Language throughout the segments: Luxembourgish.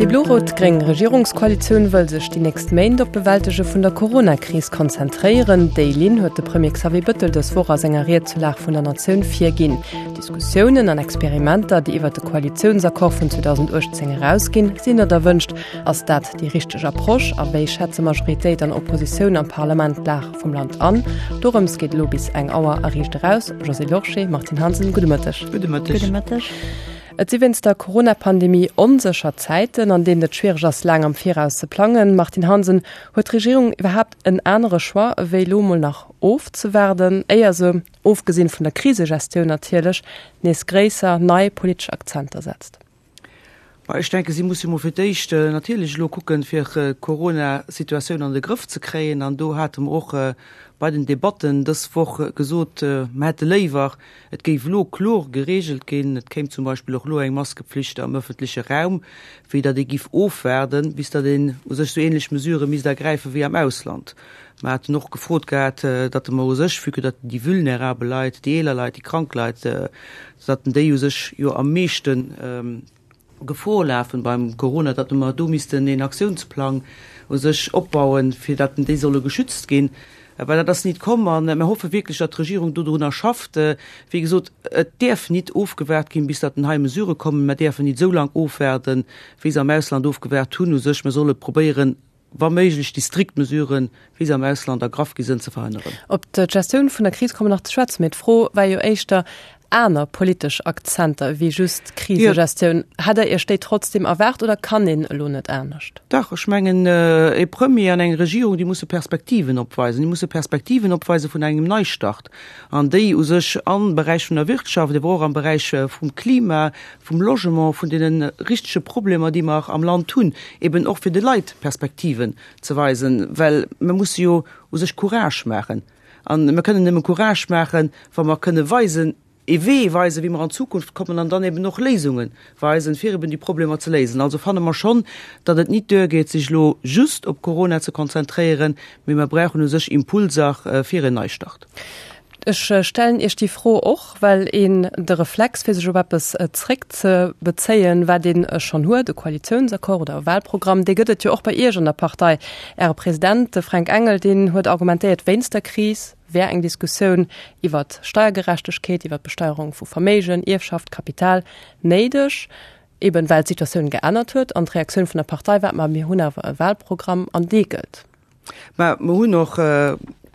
Déi blo-rot-gréng Regierungskoalitioun wëll sech déi nächst Méint op d'Bewältege vun der Corona-Kris konzentréieren. Déi Linn huet de Premier Xavier Bëttel dës Woch a senger Ried zur Lag vun der Natioun virginn. Diskussiounen an Experimenter, déi iwwer de Koalitiounsaccord vun 2018 erausginn, sinn net erwënscht. Ass dat déi richteg Approche a wéi schätze Majoritéit an Oppositioun am Parlament d'Lag vum Land an? Dorëms geet elo bis eng Auer a Riicht eraus. Josée Lorsché, Martine Hansen, gudde Mëtteg. Gudde Mëtteg. Gudde Mëtteg. Et si wéinst der Corona-Pandemie onsécher Zäiten, an deenen et schwiereg ass, laang am Viraus ze plangen. Martine Hansen, huet d'Regierung iwwerhaapt en anere Choix, ewéi elo mol nach ofzewaarden, éier se, ofgesinn vun der Krisegestioun natierlech, nees gréisser, nei politesch Akzenter setzt? Ma ech denken, si musse mol fir d'éischt natierlech elo kucken, fir d'Corona-Situatioun an de Grëff ze kréien. An do hate mer och bei den Debatten dës Woch gesot, mer hätte léiwer, et géif elo kloer geregelt ginn, et kéim zum Beispill och elo eng Maskepflicht am öffentleche Raum, wéi datt ee giff ofwaarden, bis datt een u sech esou ähnlech Mesurë misst ergräifen wéi am Ausland. Mer haten och gefrot gehat, datt mer u sech, vue que datt déi vulnerabel Leit, déi eeler Leit, déi krank Leit, datt déi u sech jo am meeschte Gefor lafen beim Corona, datt mer do missten een Aktiounsplang u sech opbauen, fir datt déi solle geschützt ginn. Well dat ass nit komm a mer hoffe wierklech, datt d'Regierung dodrunner schafft. Wéi gesot, et däerf nit ofgewaart ginn, bis datt hei Mesurë kommen. Mer däerfen nit esou laang ofwaarden, wéi se am Ausland ofgewaart hunn u sech. Mer solle probéieren, wa méiglech déi strikt Mesuren, wéi se am Ausland ergraff gi sënn, ze verhënneren. Op d'Gestioun vun der Kris komme mer nach ze schwätzen, mee d'Fro war jo éischter, aner politesch Akzenter ewéi just d'Krisegestioun, hätt Der Iech déi trotzdem erwaart oder kann een elo net anescht? Dach, ech mengen, e Premier an eng Regierung, déi musse Perspektiven opweisen. Déi musse Perspektiven opweise vun engem Neistart an déi u sech am Beräich vun der Wirtschaft, ewer och am Beräich vum Klima, vum Logement, vun deene richtege Problemer, déi mer am Land hunn, eben och fir de Leit Perspektiven ze weisen, well mer musse jo u sech Courage maachen. A mer kënnen nëmme Courage maachen, wa mer kënne weisen, ee Wee weisen, wéi mer an d'Zukunft kommen an dann eben och Léisunge weisen, fir eben déi Problemer ze léisen. Also fanne mer schonn, datt et nit duergeet, sech elo just op Corona ze konzentréieren, mee mer brauchen u sech Impulser fir en Neistart. Ech stellen Iech déi Fro och, well een de Reflex, fir sech op eppes zréckzebezéien, wat ee schonn huet, e Koalitiounsaccord oder e Wahlprogramm, dee gëtt et jo och bei Iech an der Partei. Äre President, de Fränk Engel, deen huet argumentéiert, wéinst der Kris wär eng Diskussioun iwwert Steiergerechtegkeet, iwwert d'Besteierung vu Verméigen, Ierfschaft, Kapital néideg, eben well d'Situatioun geännert huet. An d'Reaktioun vun der Partei war, Ma mir hunn awer e Wahlprogramm an dee gëllt. Mä mer hunn och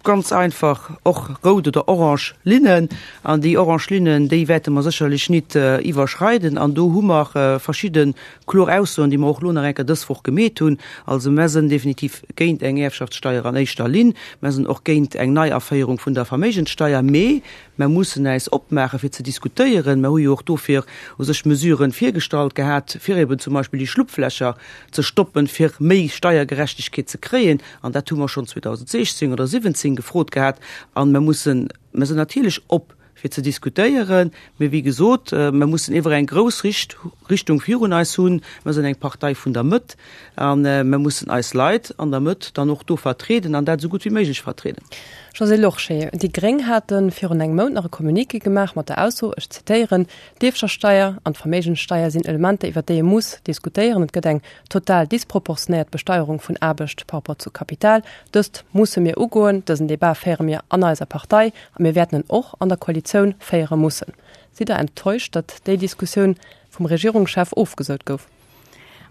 ganz einfach och rout oder orange Linnen. An déi orange Linnen, déi wäerte mer sécherlech nit iwwerschreiden. An do hu mer verschidde kloer Aussoen, déi mer och elo nach eng Kéier dës Woch gemeet hunn. Also mer sënn definitiv géint eng Ierfschaftssteier an éischter Linn. Mer sënn och géint eng Neiaféierung vun der Verméigenssteier. Mee mer mussen äis opmaache fir ze diskutéieren. Mer hu jo och dofir u sech Mesuren virgestallt gehat, fir eben zum Beispill déi Schlupflächer ze stoppen, fir méi Steiergerechtegkeet ze kréien, an dat hu mer schonn 2016 oder 2017 gefrot gehat, a mer mussen, mer sinn natierlech op fir ze diskutéieren, mee wéi gesot, mer mussen iewer eng grouss Richt Richtung virun eis hunn. Mer sinn eng Partei vun der Mëtt a mer mussen eis Leit an der Mëtt dann och do vertrieden an dat esou gutt wéi méiglech vertrieden. Josée Lorsché, Déi Gréng hate virun engem Mount nach e Communiqué gemaach mat der Ausso, ech zitéieren, D'Ierfschaftssteier an d'Verméigenssteier sinn Elementer, iwwer déi ee muss diskutéieren. Et gëtt eng total disproportionéiert Besteierung vun Aarbecht par rapport zu Kapital. Dëst musse mir ugoen. Dësen Debat féiere mir an eiser Partei a mir wäerten en och an der Koalitioun féiere mussen. Sidd Der enttäuscht, datt déi Diskussioun vum Regierungschef ofgesot gouf?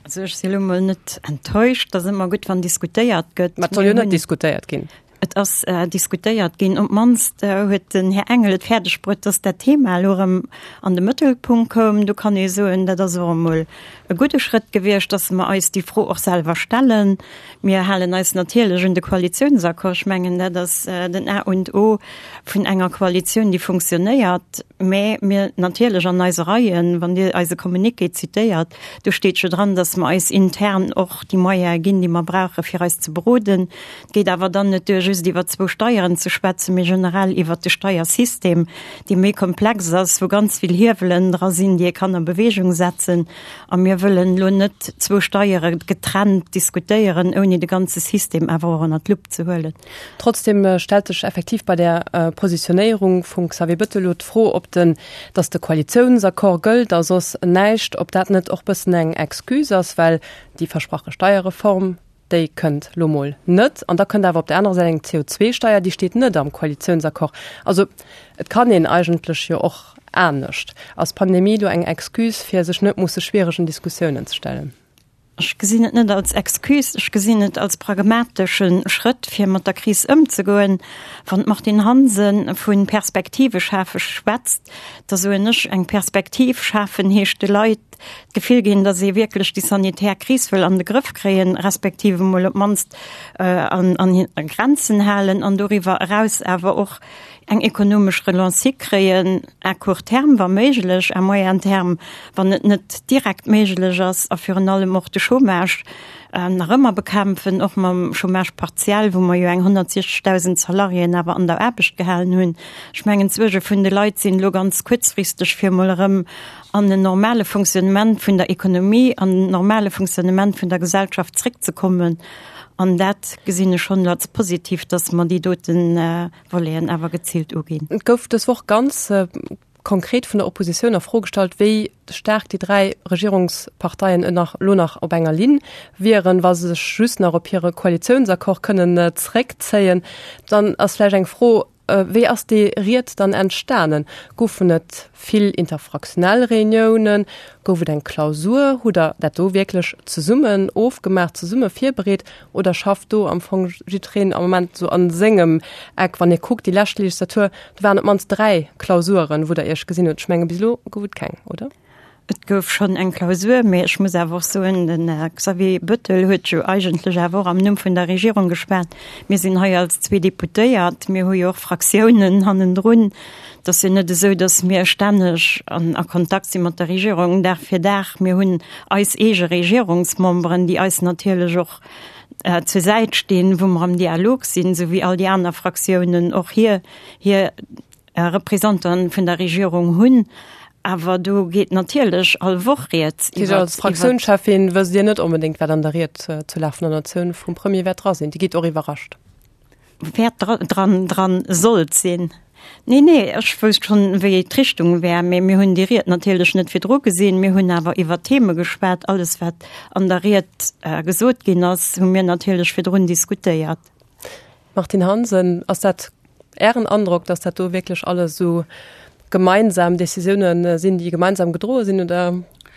Also ech si lo mol net enttäuscht. Et ass ëmmer gutt, wann diskutéiert gëtt. Mä et soll jo net diskutéiert ginn. Et ass diskutéiert ginn. Op d'mannst huet den Här Engel et fäerdeg bruet, dass dat Thema elo erëm an de Mëttelpunkt koum. Do kann ee soen, dat ass och emol e gudde Schrëtt gewiescht, dass mer eis déi Fro och selwer stellen. Mir halen eis natierlech un de Koalitionsaccord. Ech mengen, dat ass den A und O vun enger Koalitioun, déi funktionéiert. Mä mir natierlech an eise Reien, wann Dir eise Communiqué zitéiert, do steet jo dran, dass mer eis intern och déi Moyene ginn, déi mer brauchen, fir eis ze beroden. Et geet awer dann net duer, just. just iwwer zwou Steieren ze schwätzen, mee generell iwwert de Steiersystem, dee méi komplex ass, wou ganz vill Hiewelen dra sinn, déi ee kann a Bewegung setzen. A mir wëllen elo net zwou Steiere getrennt diskutéieren, ouni de ganze System awer och ënnert d'Lupp ze huelen. Trotzdem stellt sech effektiv bei där Positionéierung vum Xavier Bettel elo d'Fro, ob den, datt de Koalitiounsaccord gëllt a soss näischt, ob dat net och bëssen eng Excuse ass, well déi versprache Steierreform, déi kënnt lo mol net. An da kënnt awer op der anerer Säit eng CO2-Steier, déi steet net am Koalitiounsaccord. Also et kann een eigentlech jo och anescht. Ass d'Pandemie do eng Excuse, fir sech net musse schwieregen Diskussiounen ze stellen? Ech gesinn et net als Excuse, ech gesinn et als pragmatesche Schrëtt, fir mat der Kris ëmzegoen. Wann d'Martine Hansen vu Perspektive schafe schwätzt, da soen ech, eng Perspektiv schafen heescht de Leit d'Gefill ginn, datt ee wierklech déi sanitär Kris wëll an de Grëff kréien, respektiv emol op d'mannst an Grenzen halen an doriwwer eraus awer och eng ekonomesch Relance hikréien, à court terme wa méiglech, à moyen terme wann et net direkt méiglech ass, a virun allem och de Chômage nach ëmmer bekämpfen, och mam Chômage partiel, wou mer jo eng 160.000 Salariéen awer an der Aarbecht gehalen hunn. Ech mengen, d'Suerge vun de Leit sinn elo ganz kuerzfristeg, fir emol erëm an en normale Fonctionnement vun der Ekonomie, an en normale Fonctionnement vun der Gesellschaft zréckzekommen. An dat gesinn ech schonn als positiv, dass mer déi doten Voleten awer geziilt uginn. Et gouf dës Woch ganz konkret vun der Oppositioun a Fro gestallt, wéi staark déi 3 Regierungsparteien elo nach op enger Linn wieren, wa se sech just nach op hire Koalitiounsaccord kënnen zréckzéien. Dann ass vläicht eng Fro, Wéi ass déi Ried dann entstanen? Goufen et vill interfraktionell Reuniounen? Gouf et eng Klausur? Hutt Der dat do wierklech zesummen ofgemaach, zesumme virbereet oder schafft do am Fong jiddwereen am Moment esou a sengem Eck? Wann ee kuckt, déi lescht Legislatur, do waren op d'mannst 3 Klausuren, wou Der Iech gesinn hutt. Ech menge bis elo gouf et keng, oder? Et gouf schonn eng Klausur, mee ech muss awer och soen, den Här Xavier Bettel huet jo eigentlech awer och am Numm vun der Regierung geschwat. Mir sinn hei als zwee Deputéiert, mir hu jo och Fraktiounen hannendrun. Et ass jo net esou, datt mir stänneg an a Kontakt si mat der Regierung Dag fir Dag. Mir hunn eis eege Regierungsmemberen, déi eis natierlech och zur Säit stinn, wou mer am Dialog sinn, esou wéi all déi aner Fraktiounen och hir hir Représentanten vun der Regierung hunn. Awer do geet natierlech all Woch rieds iwwer. Als Fraktiounscheffin wësst Dir net onbedéngt, wat an der Ried zur Lag vun der Natioun vum Premier wäert dra sinn. Dir gitt och iwwerrascht. Wäert dran dran sollt sinn. Nee, nee, ech wousst schonn, wéi d'Richtung wär. Mee mir hunn déi Ried natierlech net virdru gesinn. Mir hunn awer iwwer Theme geschwat. Alles, wat an der Ried gesot ginn ass, hu mir natierlech virdrun diskutéiert. Martine Hansen, Ass dat Ären Androck, datt dat do wierklech alles esou gemeinsam Décisioune sinn, déi gemeinsam gedroe sinn, oder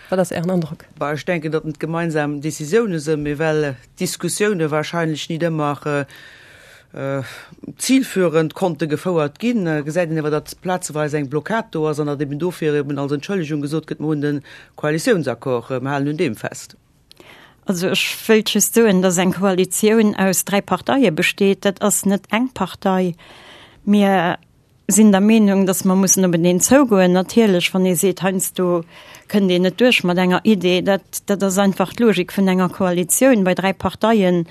wat ass Ären Androck? Bah, ech denken, datt et gemeinsam Décisioune sinn, mee well d'Diskussioune wahrscheinlech nit ëmmer zilführend konnte gefouert ginn, gesäit een awer, datt plazeweis eng Blockad do ass an datt eben dofir eben als Entschëllegung gesot gëtt, mer hunn de Koalitiounsaccord, mer halen un deem fest. Also ech wëilt just soen, dass eng Koalitioun aus dräi Parteie besteet. Dat ass net eng Partei. Mir sinn der Meenung, dass mer mussen openeen zougoen. Natierlech, wann ee seet, heiansdo kënnt een net duerch mat enger Idee, dat, dat ass einfach d'Logik vun enger Koalitioun. Bei dräi Parteien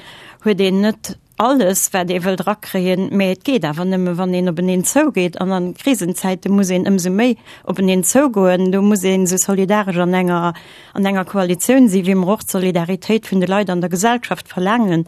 huet een net alles, wat ee wëllt erakréien, mä et geet awer nëmme wann een openeen zougeet. An a Krisenzäite muss een ëmsou méi openeen zougoen. Do muss een esou solidaresch an enger, an enger Koalitioun sinn, wéi mer och d'Solidaritéit vun de Leit an der Gesellschaft verlaangen.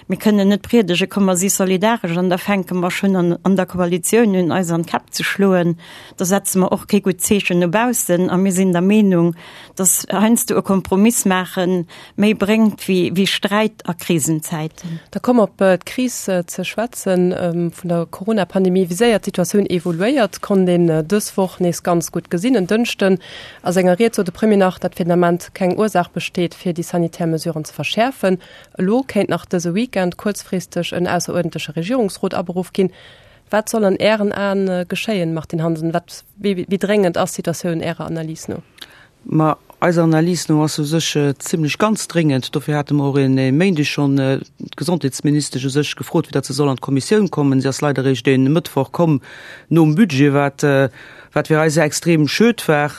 Mir kënnen net priedege komm mer si solidaresch an da fänke mer schonn an an der Koalitioun un eis an d'Käpp ze schloen. Da setze mer och kee gutt Zeechen no baussen. A mir sinn der Meenung, datt heiansdo e Kompromiss maachen, méi bréngt wéi Sträit a Krisenzäiten. Da komm op d'Kris ze schwätzen vun der Corona-Pandemie. Wéi séier d'Situatioun evoluéiert, konnt een dës Woch nees ganz gutt gesinn. En Dënschden a senger Ried sot de Premier nach, datt fir den Ament keng Ursaach besteet, fir déi sanitär Mesuren ze verschäerfen. Elo kéint nach dëse Weekend kuerzfristeg en ausseruerdentleche Regierungsrot aberuff ginn. Wat soll an Ären Aen geschéien, Martine Hansen? Wat, wéi dréngend ass d'Situatioun Ärer Analys no? Ma eiser Analys no ass se u sech zimlech ganz dréngend. Dofir hate mer och e Méindeg schonn d'Gesondheetsministesch u sech gefrot, fir datt se soll an d'Kommissioun kommen. Si ass leider eréischt e Mëttwoch komm nom Budget, wat, wat fir eis extrem schued war.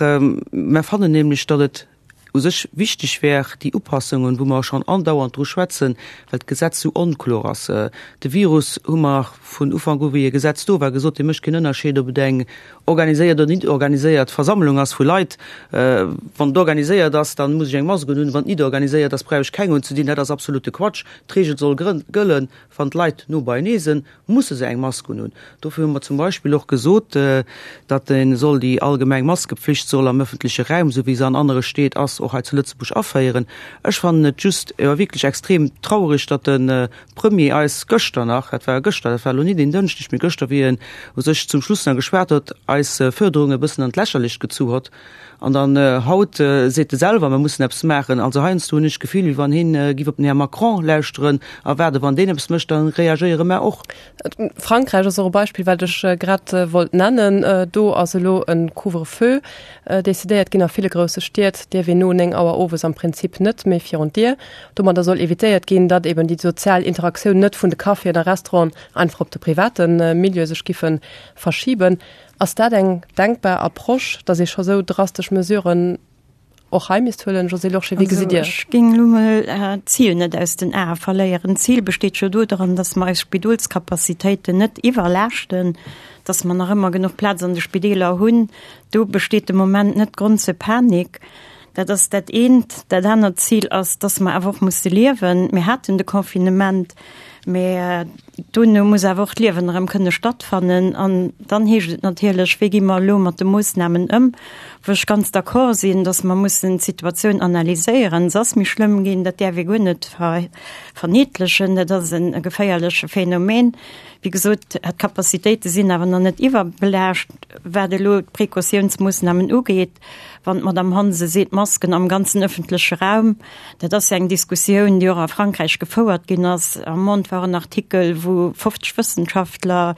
Mer fannen nämlech, datt et. U sech wichteg wär déi Upassungen, wou mer schonn andauernd dru schwätzen, well d'Gesetz sou onklor ass. De Virus, hu mer vun Ufank u, wéi e Gesetz do war, gesot, dee mécht keen Ënnerscheed, ob et eng organiséiert oder nit organiséiert Versammlung ass vu Leit. Wann et organiséiert ass, da muss ech eng Mask unhunn, wann et nit organiséiert ass, brauch ech keng unzedinn. Dat ass absolute Quatsch. D'Reegel soll gëllen, wann d'Leit no beienee sinn, musse se eng Mask unhunn. Dofir hu mer zum Beispill och gesot, datt ee soll déi allgemeng Maskepflicht soll am öffentleche Raum, esou wéi se an anere Stied ass, och hei zu Lëtzebuerg aféieren. Ech fannen et just jo wierklech extrem traurig, datt de Premier eis gëschter nach, dat war gëschter, dat war elo nit een Dënschdeg, mee gëschter, wéi en u sech zum Schluss nach geschwat huet, eis Fuerderung e bëssen an d'Lächerlecht gezu hott. An dann haut seet e selwer, mer mussen eppes maachen. Also heiansdo hunn ech d'Gefill, wéi wann hien giff op den Här Macron lauschteren a waarden, wann deen eppes mécht, da reagéiere mer och. Frankräich ass och e Beispill, wat ech grad wollt nennen. Do ass elo e Couvre-feu decidéiert ginn. A ville grousse Stied dierf een no 9 Auer owes am Prinzip net méi virun d'Dier. Domadder soll evitéiert ginn, datt eben déi sozial Interaktioun net vun de Caféen a Restauranten einfach op de private Milieu sech giffe verschiben. Ass dat eng denkbar Approche, datt ee scho sou drastesch Mesuren och hei misst huelen? Josée Lorsché, wéi gesitt Dir? Also ech géing elo mol d'Zil net aus den Ae verléieren. D'Zil besteet jo dodran, datt mer eis Spidolskapazitéiten net iwwerlaaschten, datt mer nach ëmmer genuch Plaz an de Spideeler hunn. Do besteet de Moment net Grond zur Panik. Dat ass dat eent. Dat anert Zil ass, datt mer awer och musse liewen. Mir haten de Confinement, mä Dono muss awer och d'Liewen erëm kënne stattfannen. An dann heescht et natierlech, wéi gi mer elo mat de Moossnamen ëm? Wou ech ganz d'accord sinn, datt mer mussen d'Situatioun analyséieren. Se ass méi schlëmm ginn, dat däerf ee guer net verniedlechen. Dat ass e geféierleche Phänomen. Wéi gesot, d'Capacitéite sinn awer nach net iwwerbelaascht, wat elo d'Precautiounsmoossnamen ugeet. Wann d'Madame Hansen seet, Masken am ganzen ëffentleche Raum, dat ass jo eng Diskussioun, déi och a Frankräich gefouert ginn ass. Am Monde war en Artikel, wou 50 Wëssenschaftler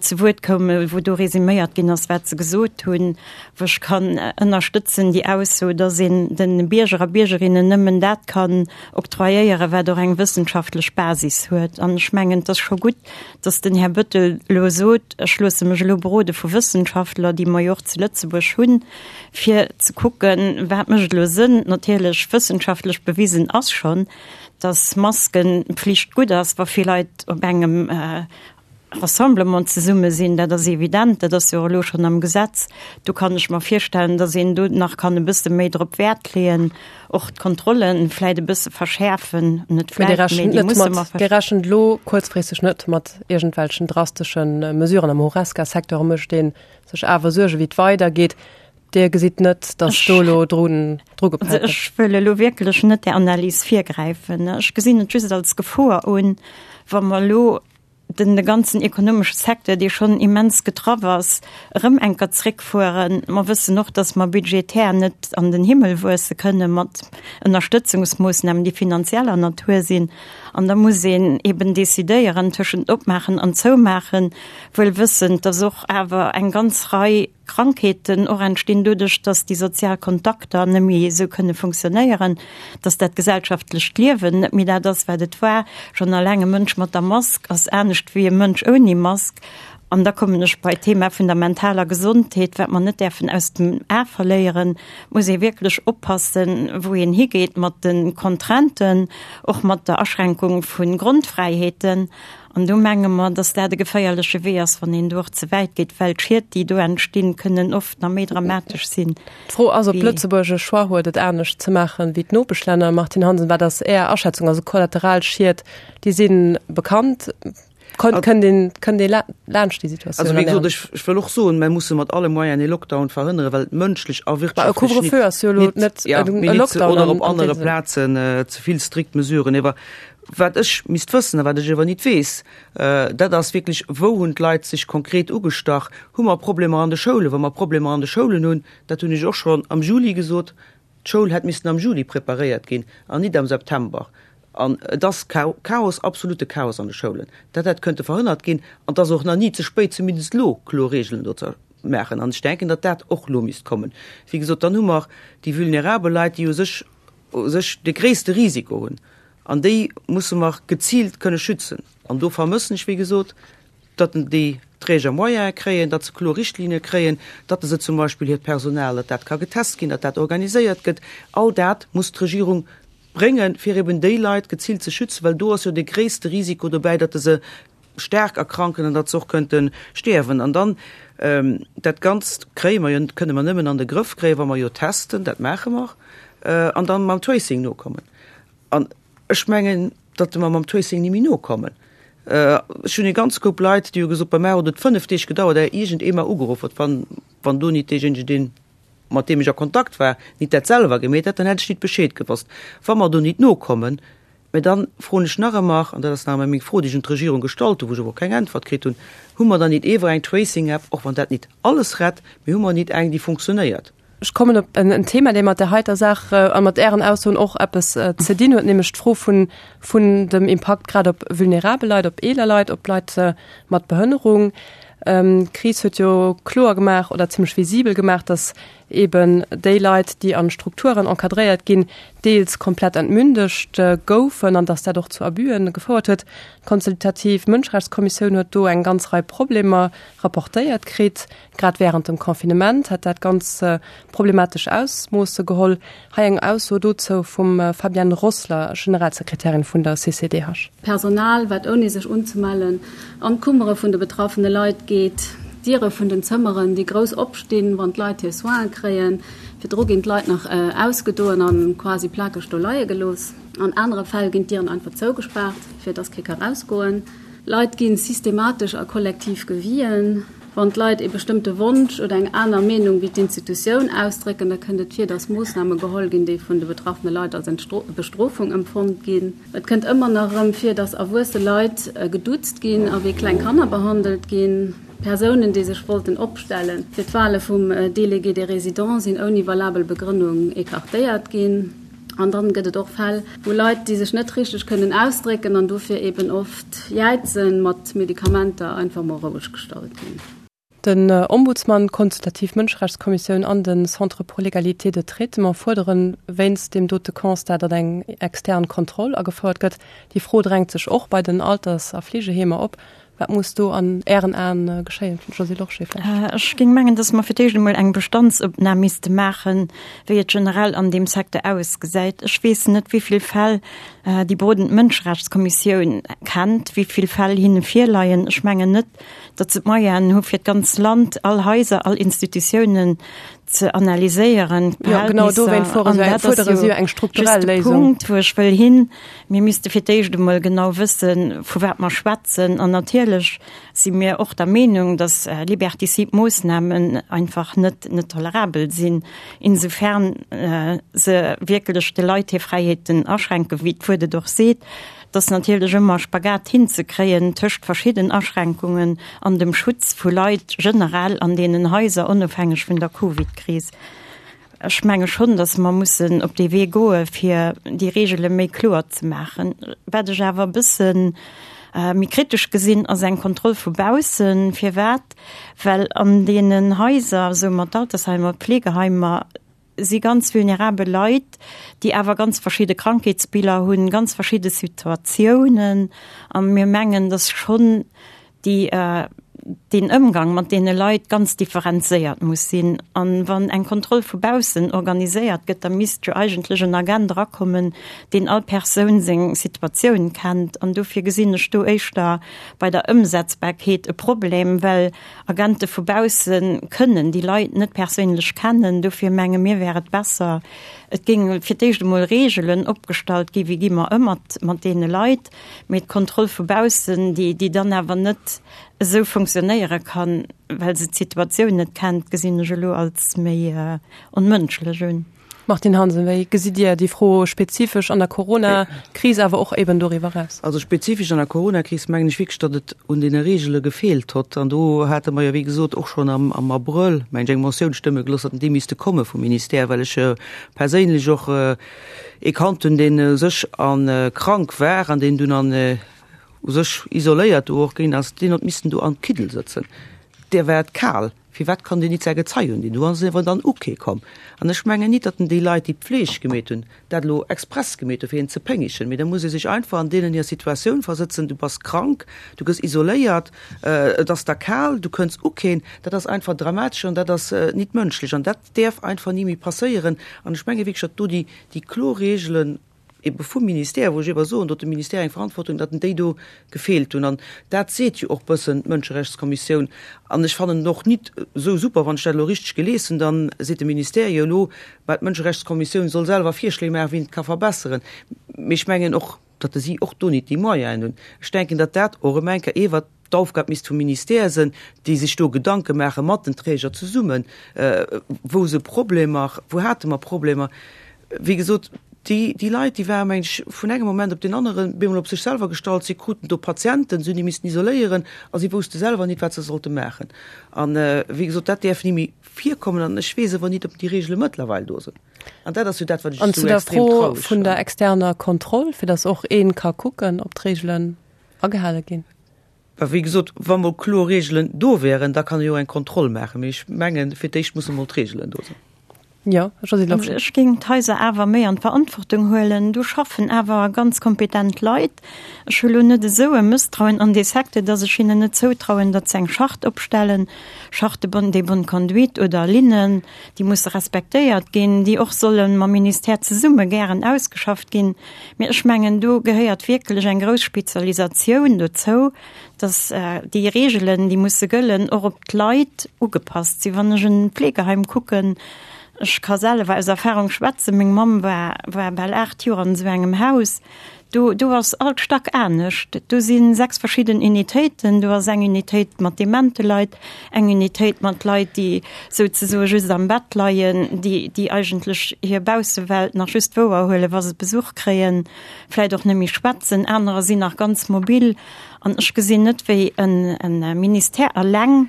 zu Wuert koumen, wou do resuméiert ginn ass, wat se gesot hunn. Wou ech kann ënnerstëtzen déi Ausso, dass een de Bierger a Biergerinnen nëmmen dat kann octroyéieren, wat och eng wëssenschaftlech Basis huet. An ech mengen, et ass scho gutt, dass den Här Bettel elo sot, ech loosse mech elo berode vu Wëssenschaftler, déi mer jo och zu Lëtzebuerg hunn, fir ze kucken, wat mécht elo Sënn. Natierlech, wëssenschaftlech bewisen ass schonn, dass Maskenpflicht gutt ass, wa vill Leit op engem Rassemblement zesumme sinn. Dat ass evident, dat ass jo och elo schonn am Gesetz. Do kann ech mer virstellen, dass een do nach kann e bësse méi drop Wäert leeën. Och d'Kontrollen vläit e bësse verschäerfen, net vläit, mee déi musse mer verschäerfen. Dir rechent elo kuerzfristeg net mat iergendwelchen drastesche Mesuren. Am Horesca-Secteur mécht ee sech awer Suergen, wéi et weidergeet. Dir gesitt net, datt do elo dru gepellt gëtt? Ech wëll elo wierklech net där Analys virgräifen. Ech gesinn et just als Gefor un, wa mer elo den de ganzen ekonomesche Secteur, dee schonn immens getraff ass, erëm enker zréckfueren. Mer wëssen och, dass mer budgetär net an den Himmel wuesse kënne mat Ënnerstëtzungsmoossnamen, déi finanzieller Natur sinn. An da muss een eben decidéieren tëschent opmaachen an zoumaachen, wuel wëssend, dass och awer eng ganz Rei Krankheeten och entstinn doduerch, dass déi sozial Kontakter net méi esou kënne funktionéieren, dass dat gesellschaftlecht Liewen net méi dat ass, wat et war. Schonn alleng e Mënsch mat der Mask ass anescht wéi e Mënsch ouni Mask. An da kommen ech bei d'Thema vun der mentaler Gesondheet, wat mer net däerfen aus dem A verléieren. Et muss ee wierklech oppassen, wou een higeet mat de Contrainten, och mat der Aschränkung vu Grondfräiheeten. An do menge mer, dass dat e geféierleche Wee ass, wann een do och ze wäit geet, well d'Schied, déi do entstinn, kënnen oft nach méi dramatesch sinn. D'Fro ass, ob Lëtzebuerg e Choix huet, et anescht ze maachen wéi d'Nopeschlänner. Martine Hansen, wat ass Är Aschätzung? Also Kollateralschied, déi si bekannt. Kënnt een, kënnt ee laanscht déi Situatioun? Also wéi gesot, ech, ech wëll och soen, mer musse mat alle Moyenen ee Lockdown verhënneren, well et mënschlech a wirtschaftlech nit, nit, ja, mee nit, oder op anere Plazen ze vill strikt Mesuren. Ewer Wat ech misst wëssen a wat ech ewer nit weess, dat ass wierklech, Wou hunn d'Leit sech konkret ugestach? Hu mer Problemer an de Schoulen? Wa mer Problemer an de Schoulen hunn, dat hunn ech och schonn am Juli gesot, d'Schoul hätt missen am Juli preparéiert ginn an nit am September. An et ass Chaos, absolute Chaos an de Schoulen. Dat hätt kënnte verhënnert ginn an et ass och nach ni ze spéit, zumindest elo kloer Regeln do ze maachen. An ech denken, datt dat och elo misst kommen. Wéi gesot, dann hu mer déi vulnerabel Leit, déi u sech u sech de gréisste Risiko hunn, an déi musse mer geziilt kënne schützen. An do vermëssen ech, wéi gesot, datt déi. Träger Moyene kréien, datt se kloer Richtlinne kréien, datt se zum Beispill hiert Personal, datt dat ka getest ginn, datt dat organiséiert gëtt. All dat muss d'Regierung bréngen, fir eben déi Leit geziilt ze schützen, well do ass jo de gréisste Risiko dobäi, datt se staark erkranken an datt se och könnte stierwen. An dann, dat Ganzt kréie mer jo, kënne mer nëmmen an de Grëff kréien, wa mer jo testen, dat maache mer, an dann mam Tracing nokommen. An ech mengen, datt mer mam Tracing ni méi nokommen. Ech hunn e ganz Koup Leit, déi hu gesot, bei mär huet et 5 Deeg gedauert, éier iergend ee mer ugeruff huet. Wann, wann do nit deejéinegen, deen, mat deem ech a Kontakt war, nit dat selwer gemeet hätt, dann hätt ech nit Bescheed gewosst. Wa mer do nit nokommen, mä dann froen ech nach ëmmer, an dat ass nach ëmmer meng Fro, déi ech un d'Regierung gestallt hunn, wou ech awer och keng Äntwert kritt hunn, Hu mer dann nit ewer eng Tracing-App, och wann dat nit alles rett, mee hu mer nit eng, déi funktionéiert? Ech kommen op en Thema, dee mat där heiter Saach a mat Ären Aussoen och eppes ze dinn huet, nämlech d'Fro vun, vun dem Impakt grad op vulnerabel Leit, op eeler Leit, op Leit mat Behënnerung. D'Kris huet jo kloer gemaach oder zimlech visibel gemaach, datt eeben déi Leit, déi an Strukturen encadréiert ginn, deels komplett entmündegt goufen an datt dat och zu Abüen gefouert huet. D'Consultativ Mënscherechtskommissioun huet do eng ganz Rei Problemer rapportéiert kritt. Grad wärend dem Confinement hätt dat ganz problematesch Ausmoosse geholl. Hei eng Ausso dozou vum Fabienne Rossler, Generalsekretärin vun der CCDH. Personal, wat ouni sech unzemellen an d'Kummere vun de betraffene Leit geet, d'Diere vun den Zëmmeren, déi grouss opstinn, wann d'Leit hir Soinen kréien. Virdru ginn d'Leit nach ausgedoen a quasi plakeg do leie gelooss. An anere Fäll ginn d'Dieren einfach zougespaart, fir dass kee ka rausgoen. Leit gi systematesch a kollektiv gewien. Wann d'Leit ee bestëmmte Wonsch oder eng aner Meenung wéi d'Institutioun ausdrécken, da kënnt et vir, dass Moossname geholl ginn, déi vun de betraffene Leit als Bestrofung empfonnt ginn. Et kënnt ëmmer nach erëm vir, dass erwuesse Leit geduuzt ginn a wéi kleng Kanner behandelt ginn. Persounen, déi sech wollten opstelle fir d'Wale vum Délégué des résidents, sinn ouni valabel Begrënnung écartéiert ginn. An dann gëtt et och Fäll, wou Leit, déi sech net richteg kënnen ausdrécken an dofir eben oft jäizen, mat Medikamenter einfach mol roueg gestallt ginn. Den Ombudsman, d'Consultativ Mënscherechtskommissioun an de Centre pour l'égalité de traitement fuerderen wéinst deem dote Constat, datt eng extern Kontroll agefouert gëtt. Déi Fro drängt sech och bei den Alters a Fleegeheemer op. Wat muss do an Ären Aen geschéien, Josée Lorsché vläicht? Ech géing mengen, dass mer fir d'éischt emol eng Bestandsopnam misste maachen, wéi et generell an deem Secteur ausgesäit. Ech weess net, wéi vill Fäll déi berodend Mënscherechtskommissioun kennt, wéi vill Fäll hinne virleien. Ech mengen net, datt se d'Moyenen hu fir d'ganz Land, all Haiser, all Institutiounen ze analyséieren. Jo, genau dowéint fuerdere si jo eng strukturell Léisung. Punkt, wou ech wëll hin. Mir misste fir d'éischt emol genau wëssen, vu wat mer schwätzen. An natierlech si mir och der Meenung, datt liberticide Moossnamen einfach net, net tolerabel sinn, insofern se wierklech de Leit hir Fräiheeten aschränken, wéi d'Wuert et och seet. Et ass natierlech ëmmer e Spagat hinzekréien tëscht verschidden Aschränkungen an dem Schutz vu Leit generell an deenen Haiser, onofhängeg vun der Covid-Kris. Ech menge schonn, datt mer mussen op dee Wee goe fir déi Reegele méi kloer ze maachen. Wat ech awer e bësse méi kritesch gesinn, ass eng Kontroll vu baussen. Firwat? Well an deenen Haiser, soe mer d'Altersheimer, d'Pflegeheimer, si ganz vulnerabel Leit, déi awer ganz verschidde Krankheetsbiller hunn, ganz verschidde Situatiounen. A mir mengen, dass schonn déi, deen Ëmgang mat deene Leit ganz differenzéiert muss sinn. An wann eng Kontroll vu baussen organiséiert gëtt, da misst jo eigentlech en Agent erakommen, deen all Persoun seng Situatioun kennt. An dofir gesinn ech do éischter bei der Ëmsetzbarkeet e Problem, well Agente vu bausse kënnen déi Leit net perséinlech kennen. Dofir menge mir wär et besser, et géinge fir d'éischt emol Reegelen opgestallt ginn, wéi gi mer ëm mat mat deene Leit. Mee d'Kontroll vu baussen, déi déi dann awer net esou funktionéiere kann, well se d'Situatioun net kennt, gesinn ech elo als méi onmënschlech un. Martine Hansen, Wéi gesitt Dir déi Fro spezifesch an der Corona-Kris, awer och eben doriwwer eraus? Also spezifesch an der Corona-Kris mengen ech wierklech, datt et un deene Reegele gefeelt hott. An do hate mer jo, wéi gesot, och schonn am am Abrëll, mengen ech, eng Motioun stëmme gelooss, datt déi misste komme vum Ministère, well ech perséinlech och ee kannt hunn, deen u sech a krank war an deen dunn an u sech isoléiert do och ginn ass, deen hott missten do am Kiddel sëtzen, där war et kal. Firwat kann deen nit säi Gezei undinn? Do ass en awer dann u kee komm. An ech mengen nit, datt en déi Leit, déi d'Pfleg gemeet hunn, dat elo express gemeet hunn, fir een ze péngechen. Mee da muss ee sech einfach an deenen hir Situatioun versëtzen, Du bass krank, du gëss isoléiert, et ass der kal, du kënns u keen. Dat ass einfach dramatesch an dat ass nit mënschlech an dat däerf einfach ni méi passéieren. An ech menge wierklech, datt do déi, déi kloer Reegelen, ebe vum Ministère, wou ech ewer soen, do huet de Ministère eng Verantwortung, datt en déi do gefeelt hunn. An dat seet jo och bëssen d'Mënscherechtskommissioun. An ech fannen et och nit esou super, wann ech dat elo richteg gelies hunn, da seet de Ministère jo elo, mä d'Mënscherechtskommissioun soll selwer Virschléi maachen, wéi een et ka verbesseren. Mee ech mengen och, datt si och do nit déi Moyenen hunn. Ech denken, datt dat och erëm eng Kéier ewer d'Aufgab misst vum Ministère sinn, déi sech do Gedanke maache mat den Träger zesummen, wou se Problemer, wou hate mer Problemer. Wéi gesot, déi, déi Leit, déi waren, meng ech, vun engem Moment op deen aneren bemol op sech selwer gestallt. Si kruten do Patienten, si hunn déi missten isoléieren a si wousste selwer nit, wat se sollte maachen. An, wéi gesot, dat däerf ni méi virkommen an ech weess awer nit, ob déi Regele mëttlerweil do sinn. An dat ass jo dat, wat ech An esou zu der extrem Fro traureg vun der fannen. externer Kontroll, fir datt och ee ka kucken, ob d'Regelen agehale ginn. Well wéi gesot, wa mol kloer Reegelen do wären, da kann ee jo eng Kontroll maachen. Mee ech mengen, fir d'éischt musse mol d'Reegelen do sinn. Jo, Josée Lorsché. Ech géing d'Haiser awer méi an d'Verantwortung huelen. Do schaffen awer ganz kompetent Leit. Ech hu lo net esou e Mësstrauen an dee Secteur, datt ech hinnen net zoutrauen, datt se eng Charte opstellen, Charte de bonne conduite oder Linnen, déi musse respektéiert ginn, déi och solle mam Ministère zesumme gären ausgeschafft ginn. Mee ech mengen, do gehéiert wierklech eng grouss Spezialisatioun dozou, dass déi Reegelen, déi musse gëllen, och op d'Leit ugepasst sinn. Wann ech en Pflegeheim kucken, ech ka selwer aus Erfahrung schwätzen, meng Mamm war, war bal 8 Joer an esou engem Haus, do, do ass all Stack anescht. Do si 6 verschidden Unitéiten. Do ass eng Unitéit mat demente Leit, eng Unitéit mat Leit, déi souzesoe just am Bett leien, déi, déi eigentlech hir Baussewelt nach just wouerhuelen, wa se Besuch kréien, vläit och net méi schwätzen, anerer sinn nach ganz mobil. An ech gesinn net, wéi e Ministère eleng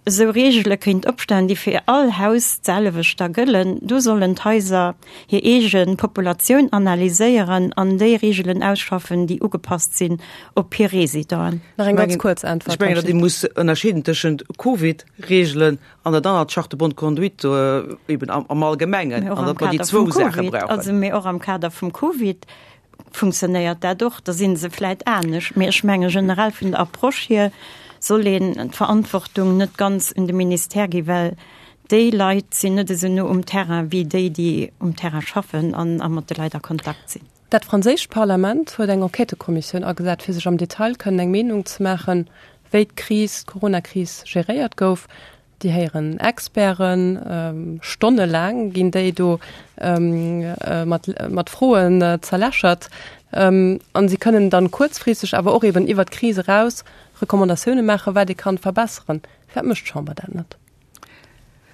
esou Reegele kéint opstellen, déi fir all Haus d'selwecht da gëllen. Do sollen d'Haiser hir eege Populatioun analyséieren an déi Reegelen ausschaffen, déi ugepasst sinn op hir Residenten. Nach eng ganz kuerz Äntwert. Ech mengen, datt ee muss ënnerscheeden tëschent Covid-Reegelen an dat anert, d'Charte de bonne conduite eben am Allgemengen, an datt mer déi zwou Saache brauchen. Also, mee och am Kader vum Covid funktionéiert dat och, da si se vläit anescht. Mee ech menge generell vun der Approche hier soll een d'Verantwortung net ganz un de Ministère gi, well déi Leit sinn net esou no um Terrain wéi déi, déi um Terrain schaffen an a mat de Leit a Kontakt sinn. Dat franséischt Parlament huet eng Enquêtëkommissioun agesat, fir sech am Detail kënnen eng Meenung ze maachen, wéi d'Kris, d'Coronakris geréiert gouf. Déi héieren Experten, stonnelaang ginn déi do mat, mat Froen zerlächert. An si kënnen dann kuerzfristeg, awer och eben iwwert d'Kris eraus Recommandatioune maachen, wat ee kann verbesseren. Firwat mécht d'Chamber dat net?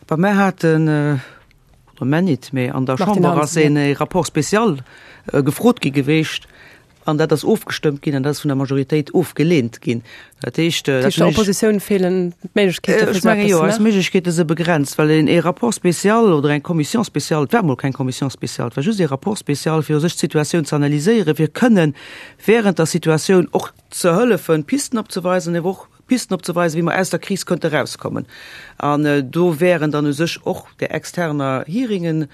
Bah, mär haten, oder mär nit, mä an der Chamber ass een Rapport spécial gefrot gi geweecht an dat ass ofgestëmmt ginn an dat ass vun der Majoritéit ofgeleent ginn. Dat heescht, dat heescht, der Oppositioun feelen d'Méiglechkeete fir esou eppes ze maachen? Ech menge jo, eis Méiglechkeete si begrenzt, well een ee Rapport spécial oder eng Commission spéciale, et war emol keng Commission spéciale, et war just ee Rapport spécial, fir u sech d'Situatioun ze analyséieren, fir kënnen während der Situatioun och ze hëllefen, Pisten opzeweisen, awer och Pisten opzeweisen, wéi mer aus der Kris könnte erauskommen. An do wären dann u sech och där externer Hearingen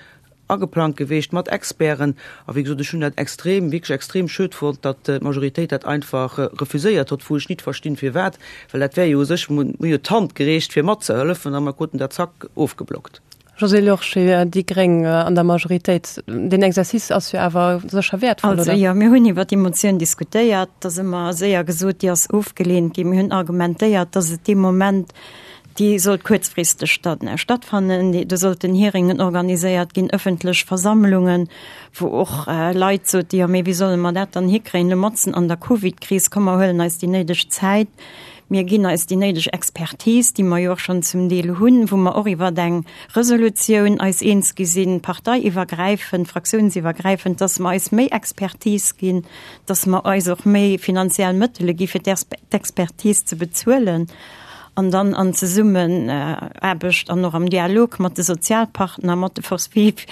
ageplangt geweecht mat Experten. A wéi gesot, ech hunn dat extrem, wierklech extrem schued fonnt, datt d'Majoritéit dat einfach refuséiert hott, wou ech nit verstinn, firwat, well dat wär jo u sech, mir hu jo d'Hand gereecht, fir matzehëllefen, a mer kruten dat zack ofgeblockt. Josée Lorsché, déi gréng an der Majoritéit, deen Exercice ass jo awer sécher wäertvoll, oder? Also jo, mir hunn iwwer déi Motioun diskutéiert, da si mer séier gesot, déi ass ofgeleent ginn. Mir hunn argumentéiert, datt et dee Moment, déi sollt kuerzfristeg dann stattfannen, do sollten Hearingen organiséiert ginn, ëffentlech Versammlungen, wou och Leit soten, jo mee wéi solle mer dat dann hikréien elo matzen an der Covidkris, komm mer huelen eis déi néideg Zäit. Mir ginn eis déi néideg Expertise, déi mer jo och schonn zum Deel hunn, wou mer och iwwer eng Resolutioun eis eens gi sinn, parteiiwwergräifend, fraktiounsiwwergräifend, dass mer eis méi Expertise ginn, dass mer eis och méi finanziell Mëttele gi fir d'Expertise ze bezuelen an dann an Zesummenaarbecht an och am Dialog mat de Sozialpartner, mat de Forces vives.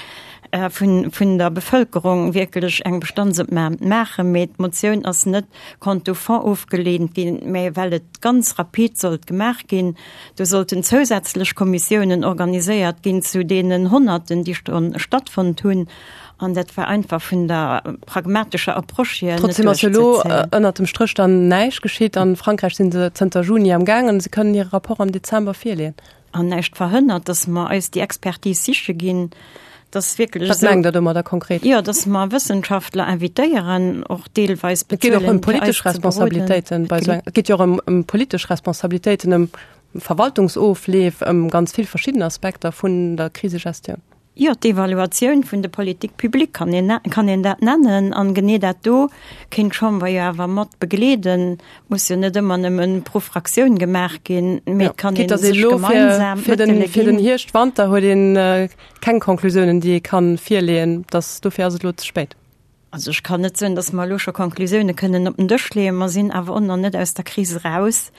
vun, vun der Bevëlkerung wierklech eng Bestandsopnam maachen. Mee d'Motioun ass net quant au fond ofgeleent ginn, mä well et ganz rapid sollt gemaach ginn. Do sollten zousätzlech Kommissiounen organiséiert ginn zu deenen Honnerten, déi schonn stattfonnt hunn. An dat war einfach vun der pragmatescher Approche hier net Trotzdem ass jo elo duerchzezéien. ënnert dem Stréch dann näischt geschitt. An Frankräich si se zënter Juni am gaangen. Se kënnen hire Rapport am Dezember virleeën. An näischt verhënnert, dass mer eis déi Expertise siche ginn, dass wierklech Wat mengt Der domadder konkret? Jo, dass mer Wëssenschaftler invitéieren, och deelweis Et geet och ëm bezuelen, fir politesch eis ze beroden. Responsabilitéiten bei esou eng, et geet jo och ëm, ëm politesch Responsabilitéiten, ëm Verwaltungsofleef, ëm ganz vill verschidden Aspekter vun der Krisegestioun. Jo, d'Evaluatioun vun de Politiques publiques kann een, kann een dat nennen. An genee dat do kéint d'Chamber jo awer mat begleeden. Muss jo net ëmmer nëmmen pro Fraktioun gemaach ginn, mee et kann een sech gemeinsam fir den, fir den Hierscht, Wanter huet een keng Konklusiounen, déi ee kann virleeën. Dass, dofir ass et elo ze spéit. Also ech kann net soen, datt mer elo scho Konklusioune kënnen op den Dësch leeën. Mer sinn awer och nach net aus der Kris eraus.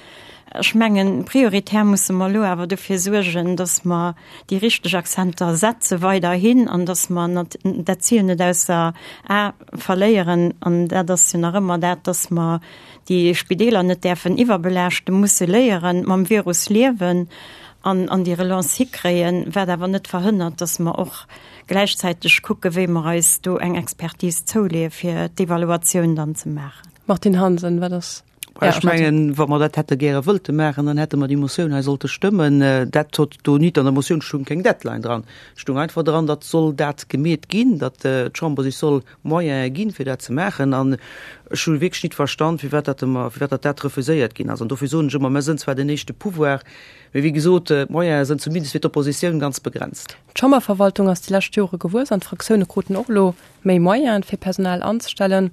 Ech mengen, prioritär musse mer elo awer dofir suergen, datt mer déi richteg Akzenter setze weiderhin an datt mer dat Zil net ausser A verléieren. An dat ass jo nach ëmmer dat, datt mer déi Spideeler net däerfen iwwerbelaaschten, musse léieren, mam Virus liewen an an déi Relance hikréien, wat awer net verhënnert, datt mer och gläichzäiteg kucke wéi mer eis do eng Expertise zouleeë fir d'Evaluatioun dann ze maachen. Martine Hansen, Wat ass Är Ech mengen, wa mer dat hätte gäre wëllte maachen, dann hätte mer déi Motioun hei sollte stëmmen. Dat hott do nit, an der Motioun stung keng Deadline dran. Et stung einfach dran, datt soll dat gemeet ginn, datt d'Chamber sech soll Moyene ginn, fir dat ze maachen. An ech hu wierklech nit verstand, firwat dat ëmmer, firwat datt dat refuséiert ginn ass. An dofir soen ech ëmmer, mer sënn zwar den éischte Pouvoir, mee wéi gesot, d'Moyene sënn zumindest fir d'Oppositioun ganz begrenzt. D'Chamberverwaltung ass déi lescht Jore gewuess an d'Fraktioune kruten och elo méi Moyene fir Personal anzestellen.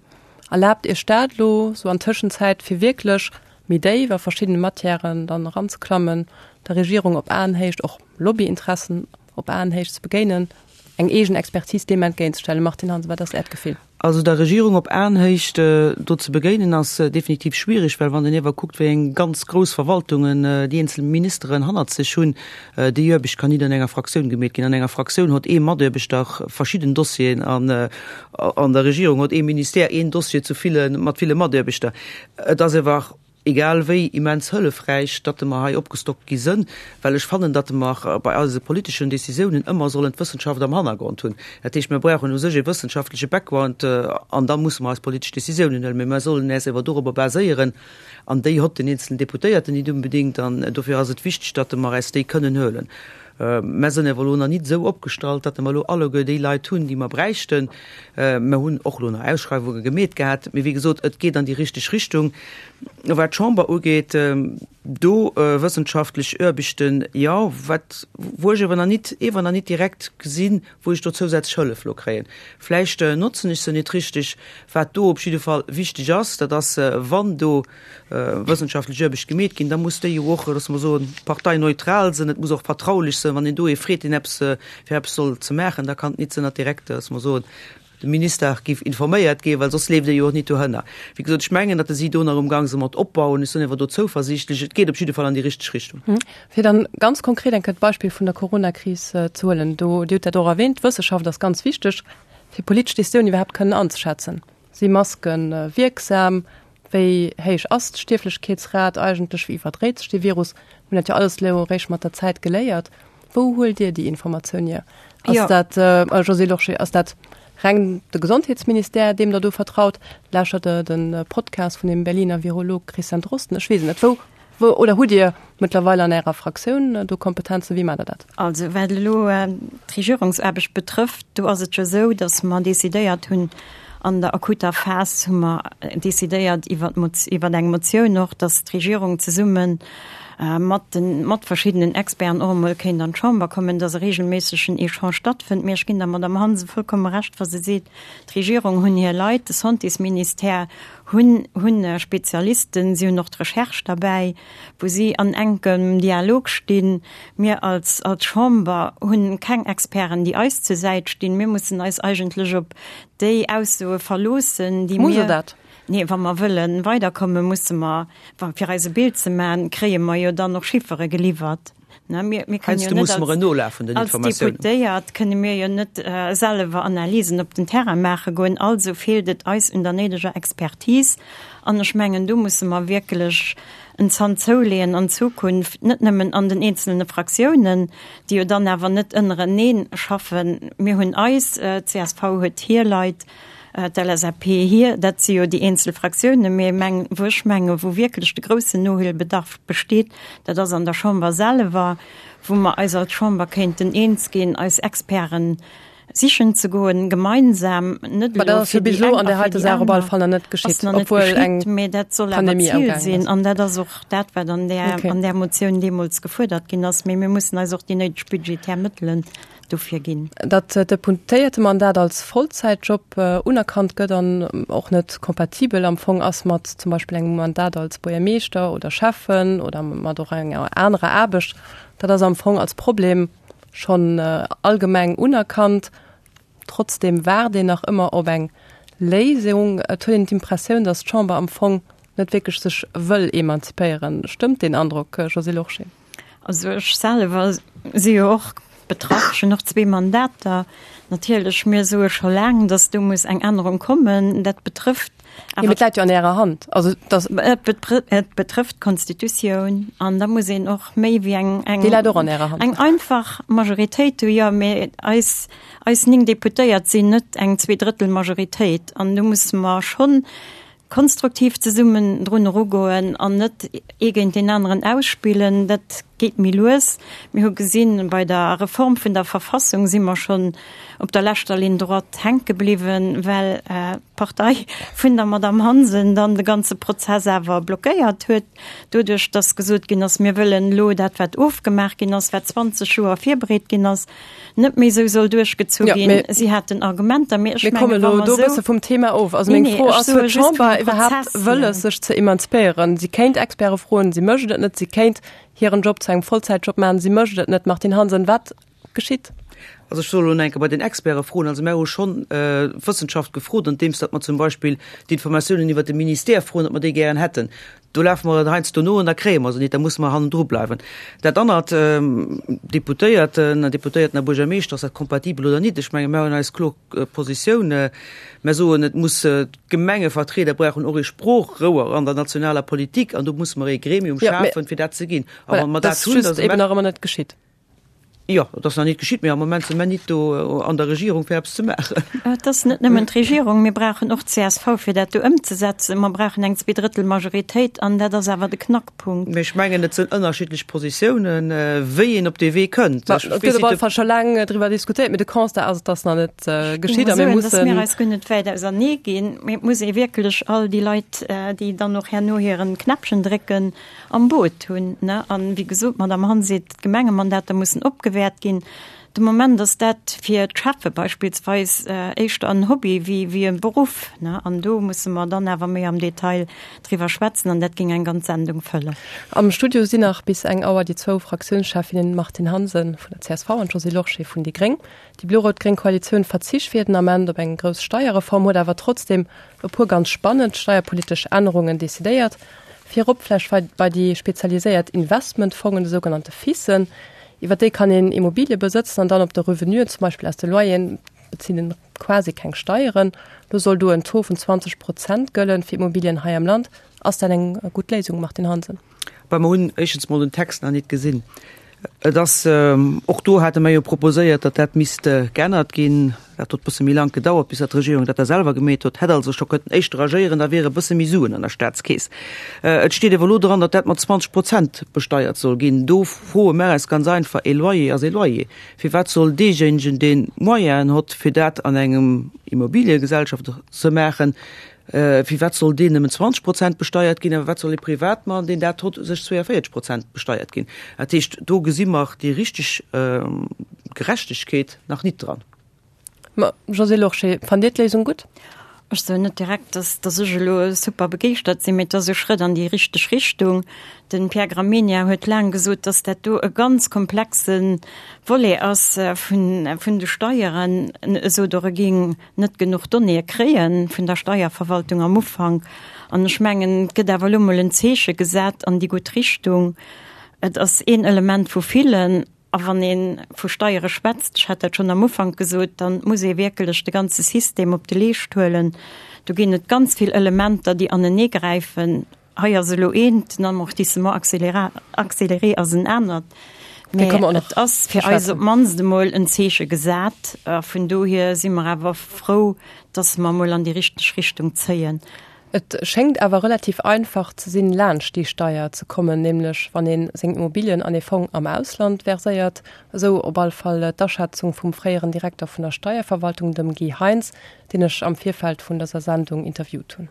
Erlaabt Iech dat elo sou an Tëschenzäit fir wierklech méi déif a verschiddene Matièren dann eranzeklammen, der Regierung op Aenhéicht, och Lobbyinteressen op Aenhéicht ze begéinen, eng eegen Expertise deem entgéintzestellen? Martine Hansen, wat ass Äert Gefill? Also der Regierung op Aenhéicht do ze begéinen ass definitiv schwierig, well wann een iewer kuckt, wéi eng ganz grouss Verwaltungen déi eenzel Ministeren hannert sech hunn, déi Aarbecht kann nit an enger Fraktioun gemeet ginn. An enger Fraktioun hott ee Mataarbechter verschidden Dossieren an an der Regierung hott ee Ministère een Dossier zu ville mat ville Mataarbechter. Et ass iewer egal wéi immens hëllefräich, datt mer hei opgestockt gi sënn, well ech fannen, datt mer bei eise politeschen Décisiounen ëmmer sollen d'Wëssenschaft am Hannergrond hunn. Dat heescht, mir brauchen u sech e wëssenschaftleche Background an da musse mer eis politesch Décisiounen huelen. Mee mer sollen äis ewer dorobber baséieren an déi hott den eenzelen Deputéierten nit unbedéngt an dofir ass et wichteg, datt mer äis déi kënnen huelen. Mer sënn ewer elo nach nit esou opgestallt, datt mer elo alleguer déi Leit hunn, déi mer bräichten. Mer hunn och elo nach Ausschreiwunge gemeet gehat, mee wéi gesot, et geet an déi richteg Richtung. Wat d'Chamber ugeet, do wëssenschaftlech Aarbechten, jo, wat, wou ech ewer nach nit, ewer nach nit direkt gesinn, wou ech do zousätzlech Hëllef elo kréien. Vläicht notzen ech se nit richteg. Wat do op jidde Fall wichteg ass, dat ass, wann do wëssenschaftlech Aarbecht gemeet ginn, da muss déi jo och, loosse mer soen, parteineutral sinn, et muss och vertraulich sinn. Wann een do ee freet, deen eppes fir eppes soll ze maachen, da kann et nit sinn, datt direkt, loosse mer soen, de Minister géif informéiert ginn, well soss leeft e jo och nit dohënner. Wéi gesot, ech mengen, datt si do nach umgang sinn mat opbauen. Ech sinn awer do zouversiichtlech. Et geet op jidde Fall an déi richteg Richtung. Fir dann ganz konkret eng Kéier d'Beispill vun der Coronakris ze huelen, do, Dir hutt dat och erwähnt, d'Wëssenschaft ass ganz wichteg, fir politesch Décisioun iwwerhaapt kënnen anzeschätzen. Si Maske wierksam? Wéi héich ass d'Stierflechkeetsrat eigentlech? Wéi iwwerdréit sech dee Virus? Mir hunn dat jo alles elo eréischt mat der Zäit geléiert. Wou huelt Dir déi Informatioun hier? Ass dat, Josée Lorsché, ass dat reng de Gesondheetsministère, deem Der do vertraut? Lauschtert Der de Podcast vun dem Berliner Virolog Christian Drosten? Ech weess et net. Wou Wou, oder hutt Dir mëttlerweil an Ärer Fraktioun do Kompetenzen? Wéi maacht Der dat? Also wat elo d'Regierungsaarbecht betrëfft, do ass et jo esou, datt mer decidéiert hunn, an der akuter Phas hu mer decidéiert iwwer iwwer eng Motioun och, datt d'Regierung zesumme mat de mat verschiddenen Experten och emol kéint an d'Chamber kommen, datt e regelméissegen Echange stattfënnt. Mee ech ginn der Madamm Hansen vollkomme Recht, wa se seet, d'Regierung hunn hir Leit, de Santésministère hunn hunn Spezialisten, si hunn och d'Recherche derbäi, wou si an enkem Dialog stinn. Mir als als Chamber hunn keng Experten, déi eis zur Säit stinn. Mir mussen eis eigentlech op déi Aussoe verloossen, déi Muss Der dat? Nee, wa mer wëlle weiderkommen, musse mer, wa fir eis e Bild ze maachen, kréie mer jo dann och Chiffere geliwwert. Mir kënnen jo net als Deputéiert kënne mir jo net selwer Analysen op den Terrain maache goen. Also feelt et eis un der néideger Expertise. An ech mengen, do musse mer wierklech en Zant zouleeën an Zukunft, net nëmmen an den eenzelne Fraktiounen, déi jo dann awer net ënnerenee schaffen. Mir hunn eis, d'CSV huet hir Leit, D'LSAP hir, dat si jo déi eenzel Fraktiounen, mee meng, wou ech menge wou wierklech de groussen Nohuelbedarf besteet, dat ass an der Chamber selwer, wou mer eis als Chamber kéinten eens ginn, eis Experten sichen ze goen, gemeinsam, net elo fir déi eng a fir déi aner. Ass nach net geschitt, mee dat soll awer d'Zil sinn an dat ass och dat, wat an där, an där Motioun deemools gefuerdert ginn ass. Mee mir mussen eis och déi néideg budgetär Mëttelen dofir ginn. Datt d'Deputéiertemandat als Vollzäitjob unerkannt gëtt an och net kompatibel am Fong ass mat zum Beispill engem Mandat als Buergermeeschter oder Schäffen oder mat och enger anerer Aarbecht, dat ass am Fong als Problem schonn allgemeng unerkannt. Trotzdeem waart een nach ëmmer op eng Léisung. Et huet een d'Impressioun, datt d'Chamber am Fong net wierklech sech wëll emanzipéieren. Stëmmt deen Androck, Josée Lorsché? Also ech selwer si jo och betraff, ech hunn och zwee Mandater. Natierlech, mir soe scho laang, datt do muss eng Ännerung kommen. Dat betrëfft awer. Mee et läit jo an Ärer Hand. Also datt. Et betrëfft d'Constitutioun an da muss een och méi wéi eng, eng. Déi läit och an Ärer Hand. Eng einfach Majoritéit hu jo, mee eis, eis 9 Deputéiert sinn net eng Zweedrëttel-Majoritéit an do musse mer schonn Konstruktiv zesummen drun erugoen an net ee géint deen aneren ausspillen, dat geet méi lues. Mir hu gesinn, bei der Reform vun der Verfassung si mer schonn op der leschter Ligne droite hänke bliwwen, well d'Partei vun der Madamm Hansen dann de ganze Prozess awer blockéiert huet, doduerch datt gesot ginn ass, mir wëllen elo dat, wat ofgemaach ginn ass, wat 20 Joer virbereet ginn ass, net méi esou soll duerchgezu ja, ginn. Si haten Argumenter, mee ech mengen, wa mer do e bësse vum Thema of. Also meng Fro ass, huet d'Chamber iwwerhaapt Wëlles, sech ze emanzipéieren? Si kéint Experte froen, si mécht et net. Si kéint hiren Job zu engem Vollzäitjob maachen, si mécht et net. Martine Hansen, wat geschitt? Also ech soll elo enke bei den Experte froen. Also mär hu schonn d'Wëssenschaft gefrot, andeems datt mer zum Beispill d'Informatiounen iwwert de Ministère froen, datt mer déi gären hätten. Do lafe mer heiansdo no an da kréie mer se nit, da musse mer hannendru bleiwen. Dat anert, Deputéierten, Deputéierten a Buergermeeschter, ass dat kompatibel oder nit? Ech menge mer hunn eis kloer Positioun. Mer soen, et muss, d'Gemengevertrieder brauchen och ee Sproochrouer an der nationaler Politik an do musse mer ee Gremium schafen, fir dat ze ginn. A wa mer dat hunn, da si mer. Dat ass just eben nach ëmmer net geschitt. Jo, et ass nach nit geschitt, mee am Moment si mer nit do an der Regierung fir eppes ze maachen. Et ass net nëmmen d'Regierung, mir brauchen och d'CSV fir dat do ëmzesetzen. Mer brauchen eng Zweedrëttelmajoritéit an dat ass awer de Knackpunkt. Mee ech mengen, et sinn ënnerschiddlech Positiounen, wéi een op dee Wee kënnt. Ech Et gëtt op alle Fall scho laang driwwer diskutéiert, mee de Constat ass, et ass nach net geschitt a mir mussen. Dass mir eis guer net wäit ausernee ginn, mee et muss ee wierklech all déi Leit, déi dann och herno hiren Knäppchen drécken, am Boot hunn. An, wéi gesot, d'Madame Hann seet, d'Gemengemandater mussen opgewäert ginn. De Moment ass dat fir d'Schäffe beispillsweis éischter en Hobby wéi e Beruff. An do musse mer dann awer méi am Detail driwwer schwätzen an dat géing eng ganz Sendung fëllen. Am Studio sinn nach bis eng Auer déi zwou Fraktiounscheffinnen Martine Hansen vun der csv an Josée Lorsché vun déi gréng. Déi blo-rout-gréng Koalitioun verzicht fir den Ament op eng grouss Steierreform, huet awer trotzdeem e puer ganz spannend steierpolitesch Ännerungen decidéiert. Virop vläicht bei déi spezialiséiert Investmentfongen, de sougenannte FISen. Iwwer déi kann een Immobilie besëtzen an dann op de Revenuen, zum Beispill aus de Loyeren, bezilt een quasi keng Steieren. Lo soll do en Taux vun 20 Prozent gëllen fir Immobilien hei am Land. Ass dat eng gutt Léisung, Martine Hansen? Bah, mer hunn éischtens mol den Text nach nit gesinn. Et ass, och do hate mer jo proposéiert, datt dat misst geännert ginn. Dat huet e bësse méi laang gedauert, bis datt d'Regierung dat da selwer gemeet huet. Hätt also scho kënnten éischter agéieren, da wiere e bësse méi Suen an der Staatskeess. Et steet awer elo dran, datt dat mat 20 Prozent besteiert soll ginn. Do froe mer eis ganz einfach, E Loyer ass e Loyer. Firwat soll deejéinegen, dee Moyenen hott, fir dat an engem Immobiliegesellschaft ze maachen, Firwat soll deen nëmmen 20 Prozent besteiert ginn a firwat soll ee Privatmann, deen dat hott, sech 42 Prozent besteiert ginn? Dat heescht, do gesi mer déi richteg Gerechtegkeet nach nit dran. Ma Josée Lorsché, fannt Dir d'Léisung gutt? Ech soen net direkt, dass dass ech elo super begeeschtert sinn, mee et ass e Schrëtt an déi richteg Richtung. De Pierre Gramegna huet laang gesot, dass dat do e ganz komplexe Volet ass vun vun de Steieren. E sot och, e géing net genuch Donnéeë kréie vun der Steierverwaltung am Ufank. An ech mengen, et gëtt awer elo mol en Zeeche gesat an déi gutt Richtung. Et ass een Element vu villen. A wann ee vu Steiere schwätzt, ech hat dat schonn am Ufank gesot, da muss ee wierkelech de ganze System op de Leescht huelen. Do ginn et ganz vill Elementer, déi aneneegräifen. Hei ass elo eent, den Amortissement accéléré ass en anert. Mä et ass fir eis op d'mannst emol en Zeeche gesat. A vun dohier si mer awer frou, dass mer emol an déi richteg Richtung zéien. Et schéngt awer relativ einfach ze sinn, laanscht déi Steier ze kommen, nämlech wann ee seng Immobilien an ee Fong am Ausland verséiert. Esou op all Fall d'Aschätzung vum fréieren Direkter vun der Steierverwaltung, dem Guy Heintz, deen ech am Virfeld vun dëser Sendung interviewt hunn.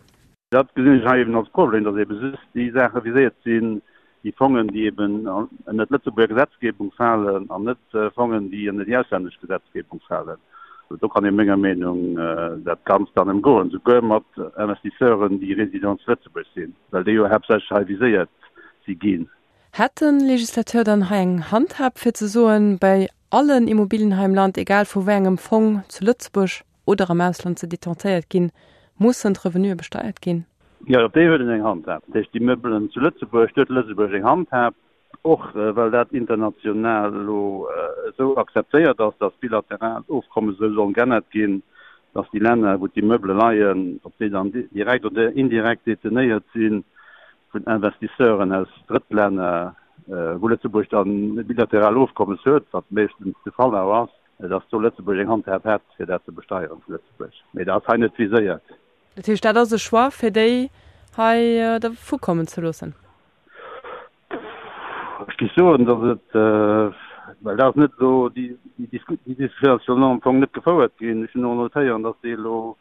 Dat gesinn ech hei eben als Problem, dass ebe just déi Saache viséiert sinn, déi Fongen, déi eben ënner d'Lëtzebuerger Gesetzgebung falen an net Fongen, déi ënner déi auslännesch Gesetzgebung falen. Do kann ee menger Meenung dat Ganzt dann ëmgoen, souguer mat Investisseuren, déi Résidents zu Lëtzebuerg sinn, well déi jo haaptsächlech hei viséiert si ginn. Hätt de Législateur dann hei eng Handhab, fir ze soen, bei allen Immobilien hei am Land, egal vu wéi engem Fong zu Lëtzebuerg oder am Ausland se detentéiert ginn, mussen d'Revenue besteiert ginn? Jo, op déi huet en eng Handhab. Dat heescht, déi Meubelen zu Lëtzebuerg, do huet Lëtzebuerg eng Handhab, och well dat international elo esou akzeptéiert ass, datt bilateral Ofkommes esou sollen geännert ginn, datt déi Länner, wou d'Immeubele leien, ob déi dann direkt oder indirekt detenéiert si vun Investisseuren aus Drëttlänner, wou Lëtzebuerg dann e bilateral Ofkommes huet, wat meeschtens de Fall awer ass, datt do Lëtzebuerg eng Handhab hätt, fir dat ze besteieren zu Lëtzebuerg. Mee dat ass hei net viséiert. Dat heescht, dat ass e Choix, fir déi hei dervu kommen ze loossen? Ech géif soen, datt et, well dat ass net elo, déi Diskussioun ass jo elo am Fong net gefouert ginn. Ech hunn och notéieren, datt déi elo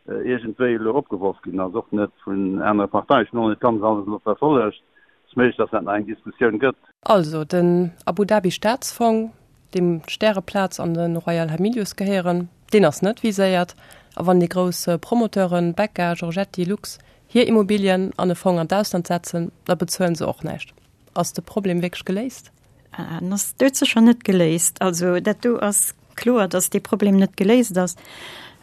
iergendwéi elo opgeworf ginn ass, och net vun anere Parteien. Ech hunn och net ganz alles elo verfollegt. Et ass méiglech, datt dat nach eng Diskussioun gëtt. Also, den Abu Dhabi Staatsfong, deem d'Stäreplaz an de Royal Hamilius gehéieren, deen ass net viséiert. A wann déi grouss Promoteuren, Becca, Giorgetti, Lux, hir Immobilien an e Fong an d'Ausland setzen, da bezuelen se och näischt. Ass de Problem wierklech geléist? En ass doudsécher net geléist. Also dat do ass kloer, datt dee Problem net geléist ass.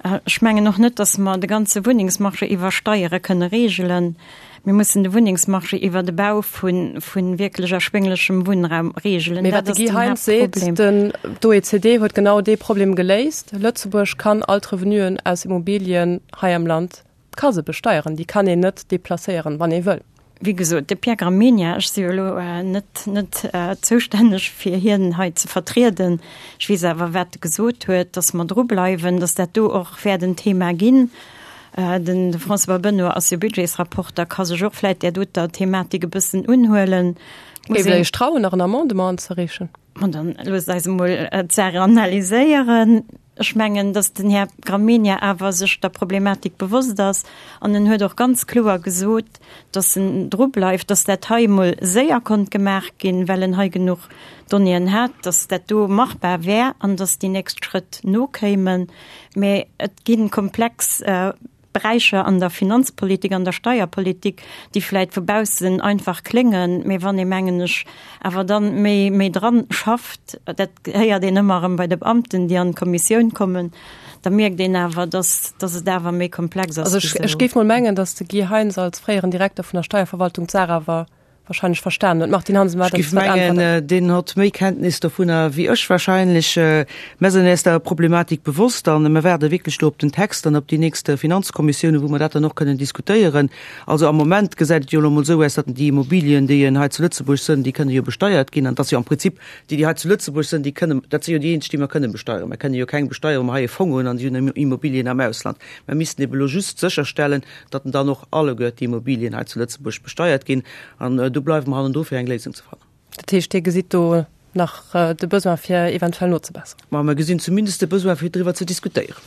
Ech mengen och net, datt mer de ganze Wunnengsmarché iwwer Steiere kënne reegelen. Mir mussen de Wunnengsmarché iwwer de Bau vu wierklech erschwénglechem Wunnraum reegelen. Mee wat de Guy Heintz seet, den d'OECD huet genau dee Problem geléist, Lëtzebuerg kann all d'Revenuen aus Immobilien hei am Land ka se besteieren, déi kann een net deplacéieren, wann ee wëll. Wéi gesot, de Pierre Gramegna, ech si jo elo net net zoustänneg fir hien hei ze vertrieden, ech weess awer wat e gesot huet, datt mer dru bleiwen, datt dat do och wäert en Thema ginn. Den François Benoy ass jo Budgetsrapporter, ka sech och vläit där doter Thematik e bëssen unhuelen. Géift Der Iech trauen, nach en Amendement anzereechen? Ma dann loosst eis emol d'Saach analyséieren. Ech mengen, datt den Här Gramegna awer sech der Problematik bewosst ass an en huet och ganz kloer gesot, datt en dru bleift, datt dat hei emol séier konnt gemaach ginn, well en hei genuch Donnéeën hat, datt dat do machbar wär an datt déi nächst Schrëtt nokéimen. Mä et gi komplex Beräicher an der Finanzpolitik, an der Steierpolitik, déi vläit vu baussen einfach kléngen, mä wann ee, mengen ech, awer dann méi, méi dran schafft, dat héiert een ëmmer erëm bei de Beamten, déi an d'Kommissioun kommen, da mierkt een awer, dass, dass et awer méi komplex ass Also ech, ech géif mol mengen, dass de Guy Heintz als fréieren Direkter vun der Steierverwaltung d'Saach awer wahrscheinlech verstanen huet. Martine Hansen, wat Ech géif mengen, deen hott méi Kenntnis dovunner wéi ech wahrscheinlech. Mer sinn äis der Problematik bewosst an mer waarde wierklech do op den Text an op déi nächst Finanzkommissioune, wou mer dat dann och kënnen diskutéieren. Also am Moment gesäit et jo elo emol esou aus, datt déi Immobilien, déi hei zu Lëtzebuerg sënn, déi kënne jo besteiert ginn an et ass jo am Prinzip déi, déi hei zu Lëtzebuerg sënn, déi kënne, dat si jo déi eenzeg, déi mer kënne besteieren. Mer kënne jo keng besteieren, wa mer hei e Fong hunn an déi hunn Immobilien am Ausland. Mer missten ebe elo just sécherstellen, datt dann och alleguer d'Immobilien hei zu Lëtzebuerg besteiert ginn. An do bleiwe mer hannendru fir eng Léisung ze fannen. Dat heescht, Dir gesitt do nach de Besoin fir eventuell nozebesseren? Ma mer gesinn zumindest de Besoin fir driwwer ze diskutéieren.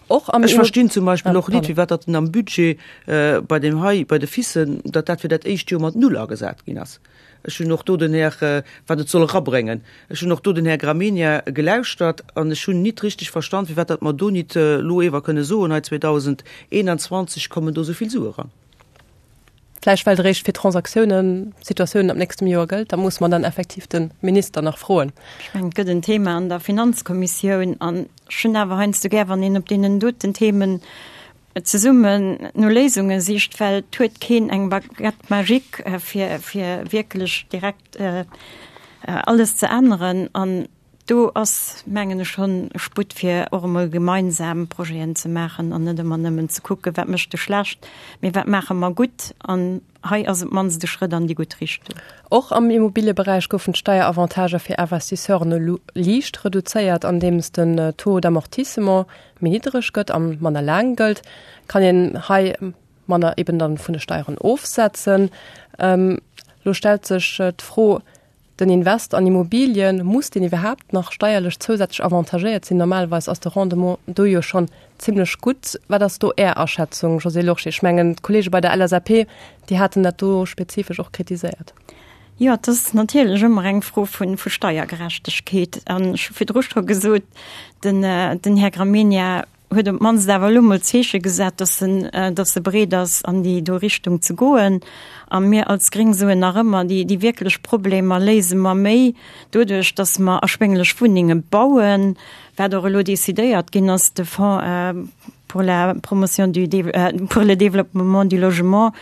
Och am Ech verstinn zum Beispill och nit, firwat datt am Budget bei deem hei, bei de FICen, datt dat fir dat éischt Joer mat null agesat ginn ass. Ech hunn och do den Här, wat et soll erabréngen, ech hunn och do den Här Gramegna gelauschtert an ech hunn nit richtig verstan, firwat datt mer do nit elo ewer kënne soen, hei 2021 kommen do esou vill Sue eran. Vläicht well et eréischt fir Transaktiounen, Situatiounen ab nächstem Joer gëllt. Da muss mer dann effektiv de Minister nach froen. Ech mengen, et gëtt en Thema an der Finanzkommissioun an ech hunn awer heiansdo gär, wann een op deenen doten Themen. zesummen no Léisunge sicht, well et huet keen eng Baguette magique, fir, fir wierklech direkt alles ze änneren. An do ass, mengen ech, schonn Sputt, fir och emol gemeinsam Projeten ze maachen an net ëmmer nëmmen ze kucken, wat mécht de schlecht, mee wat maache mer gutt. An hei ass op d'mannst e Schrëtt an déi gutt Richtung. Och am Immobilieberäich goufen d'Steieravantager fir Investisseuren elo liicht reduzéiert, andeems den Taux d'amortissement méi niddereg gëtt a manner laang gëllt, kann een hei manner eben dann vun de Steieren ofsetzen. Elo stellt sech d'Fro, Den Invest an Immobilien, muss deen iwwerhaapt nach steierlech zousätzlech avantagéiert sinn? Normalerweis ass de Rendement do jo schonn zimlech gutt. Wat ass do Är Aschätzung, Josée Lorsché? Ech mengen, d'Kollege bei der LSAP, déi haten dat do spezifesch och kritiséiert. Jo, et ass natierlech ëmmer eng Fro vu Steiergerechtegkeet. An ech hu virdru scho gesot, den Här Gramegna huet op d'mannst awer elo mol d'Zeeche gesat, dass en, dass e bereet ass, an déi do Richtung ze goen. A mir als Gréng soen nach ëmmer, déi, déi wierklech Problemer léise mer méi doduerch, dass mer erschwénglech Wunnenge bauen, wat och elo decidéiert ginn ass, de Fonds pour la promotion du, pour le développement du logement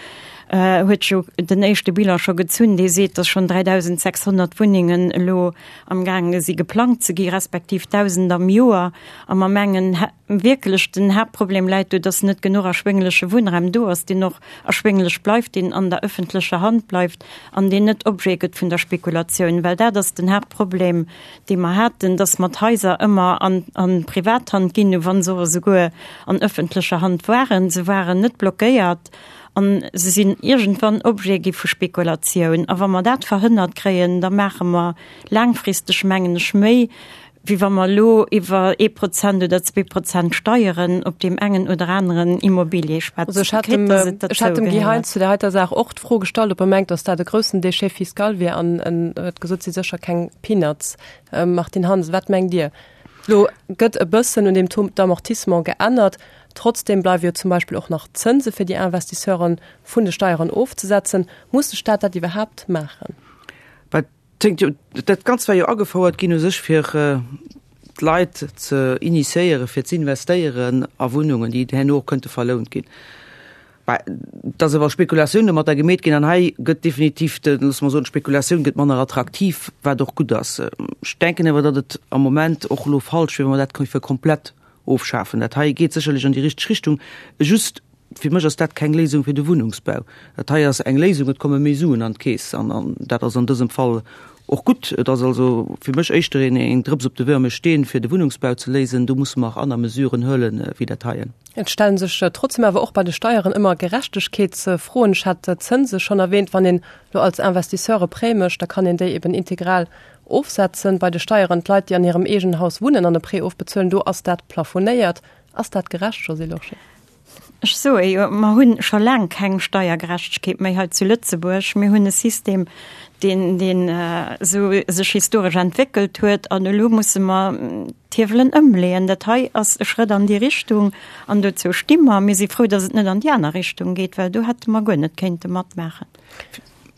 huet jo den éischte Bilan scho gezunn, dee seet, dass schonn 3.600 Wunnengen elo amgaange si geplangt ze gi, respektiv 1.000 am Joer. A mer mengen wierklech, den Haaptproblem läit do, dass net genuch erschwéngleche Wunnraum do ass, deen och erschwénglech bleift, deen an der öffentlecher Hand bleift an deen net Objet gëtt vun der Spekulatioun. Well dat ass den Haaptproblem, dee mer haten, dass mer d'Haiser ëmmer an a Privathand ginn hu wa se och esouguer an öffentlecher Hand waren. Se waren net blockéiert a se sinn iergendwann Objet gi vu Spekulatioun. A wa mer dat verhënnert kréien, da maache mer laangfristeg, mengen ech, méi, wéi wa mer elo iwwer ee Prozent oder 2% Steieren op deem engen oder aneren Immobilier schwätzen. Also ech hat dem, ech hat dem Guy Heintz zu der heiter Saach och d'Fro gestallt, ob e mengt, datt dat e groussen Déchet fiscal wier an en huet gesot, et si sécher keng Peanuts. Martine Hansen, wat mengt Dir? Elo gëtt e bëssen un deem Taux d'amortissement geännert, trotzdem bleiwe jo zum Beispill och nach d'Zënse fir déi Investisseuren vun de Steieren ofzesetzen. Muss de Staat dat iwwerhaapt maachen? Wat Dat Ganzt war jo agefouert ginn u sech fir d'Leit ze initiéieren, fir z'investéieren a Wunnungen, déi herno och kënnte verlount ginn. Bah, et ass awer Spekulatioun domatter gemeet ginn an hei gëtt definitiv de, loosse mer soen, d'Spekulatioun gëtt manner attraktiv, wat och gutt ass. Ech denken awer, datt et am Moment och elo falsch wier, wa mer dat géife komplett ofschafen. Dat hei geet sécherlech an déi richteg Richtung, just fir mech ass dat keng Léisung fir de Wunnungsbau. Dat hei ass eng Léisung, et komme méi Suen an d'Keess an dat ass an dësem Fall och gutt. Et ass also fir mech éischter een eng Drëps op de wërme Steen, fir de Wunnungsbau ze léisen. Do musse mer aner Mesuren huelen, wéi dat heien. Et stellen sech trotzdem awer och bei de Steieren ëmmer Gerechtegkeetsfroen. Ech hat d'Zënse schonn erwähnt. Wann een elo als Investisseur e Prêt mécht, da kann een déi eben integral ofsetzen. Bei de Steieren, d'Leit, déi an hirem eegenen Haus wunnen an e Prêt ofbezuelen, do ass dat plafonéiert. Ass dat gerecht, Josée Lorsché? Ech soe jo, mer hu scho laang keng Steiergerechtegkeet méi hei zu Lëtzebuerg. Mir hunn e System, deen, deen esou sech historesch entwéckelt huet, an elo musse mer d'Hiewelen ëmleeën. Dat hei ass e Schrëtt an déi Richtung, an dozou sti mer. Mir si frou, datt et net an déi aner Richtung geet, well do hätte mer guer net kéinte matmaachen.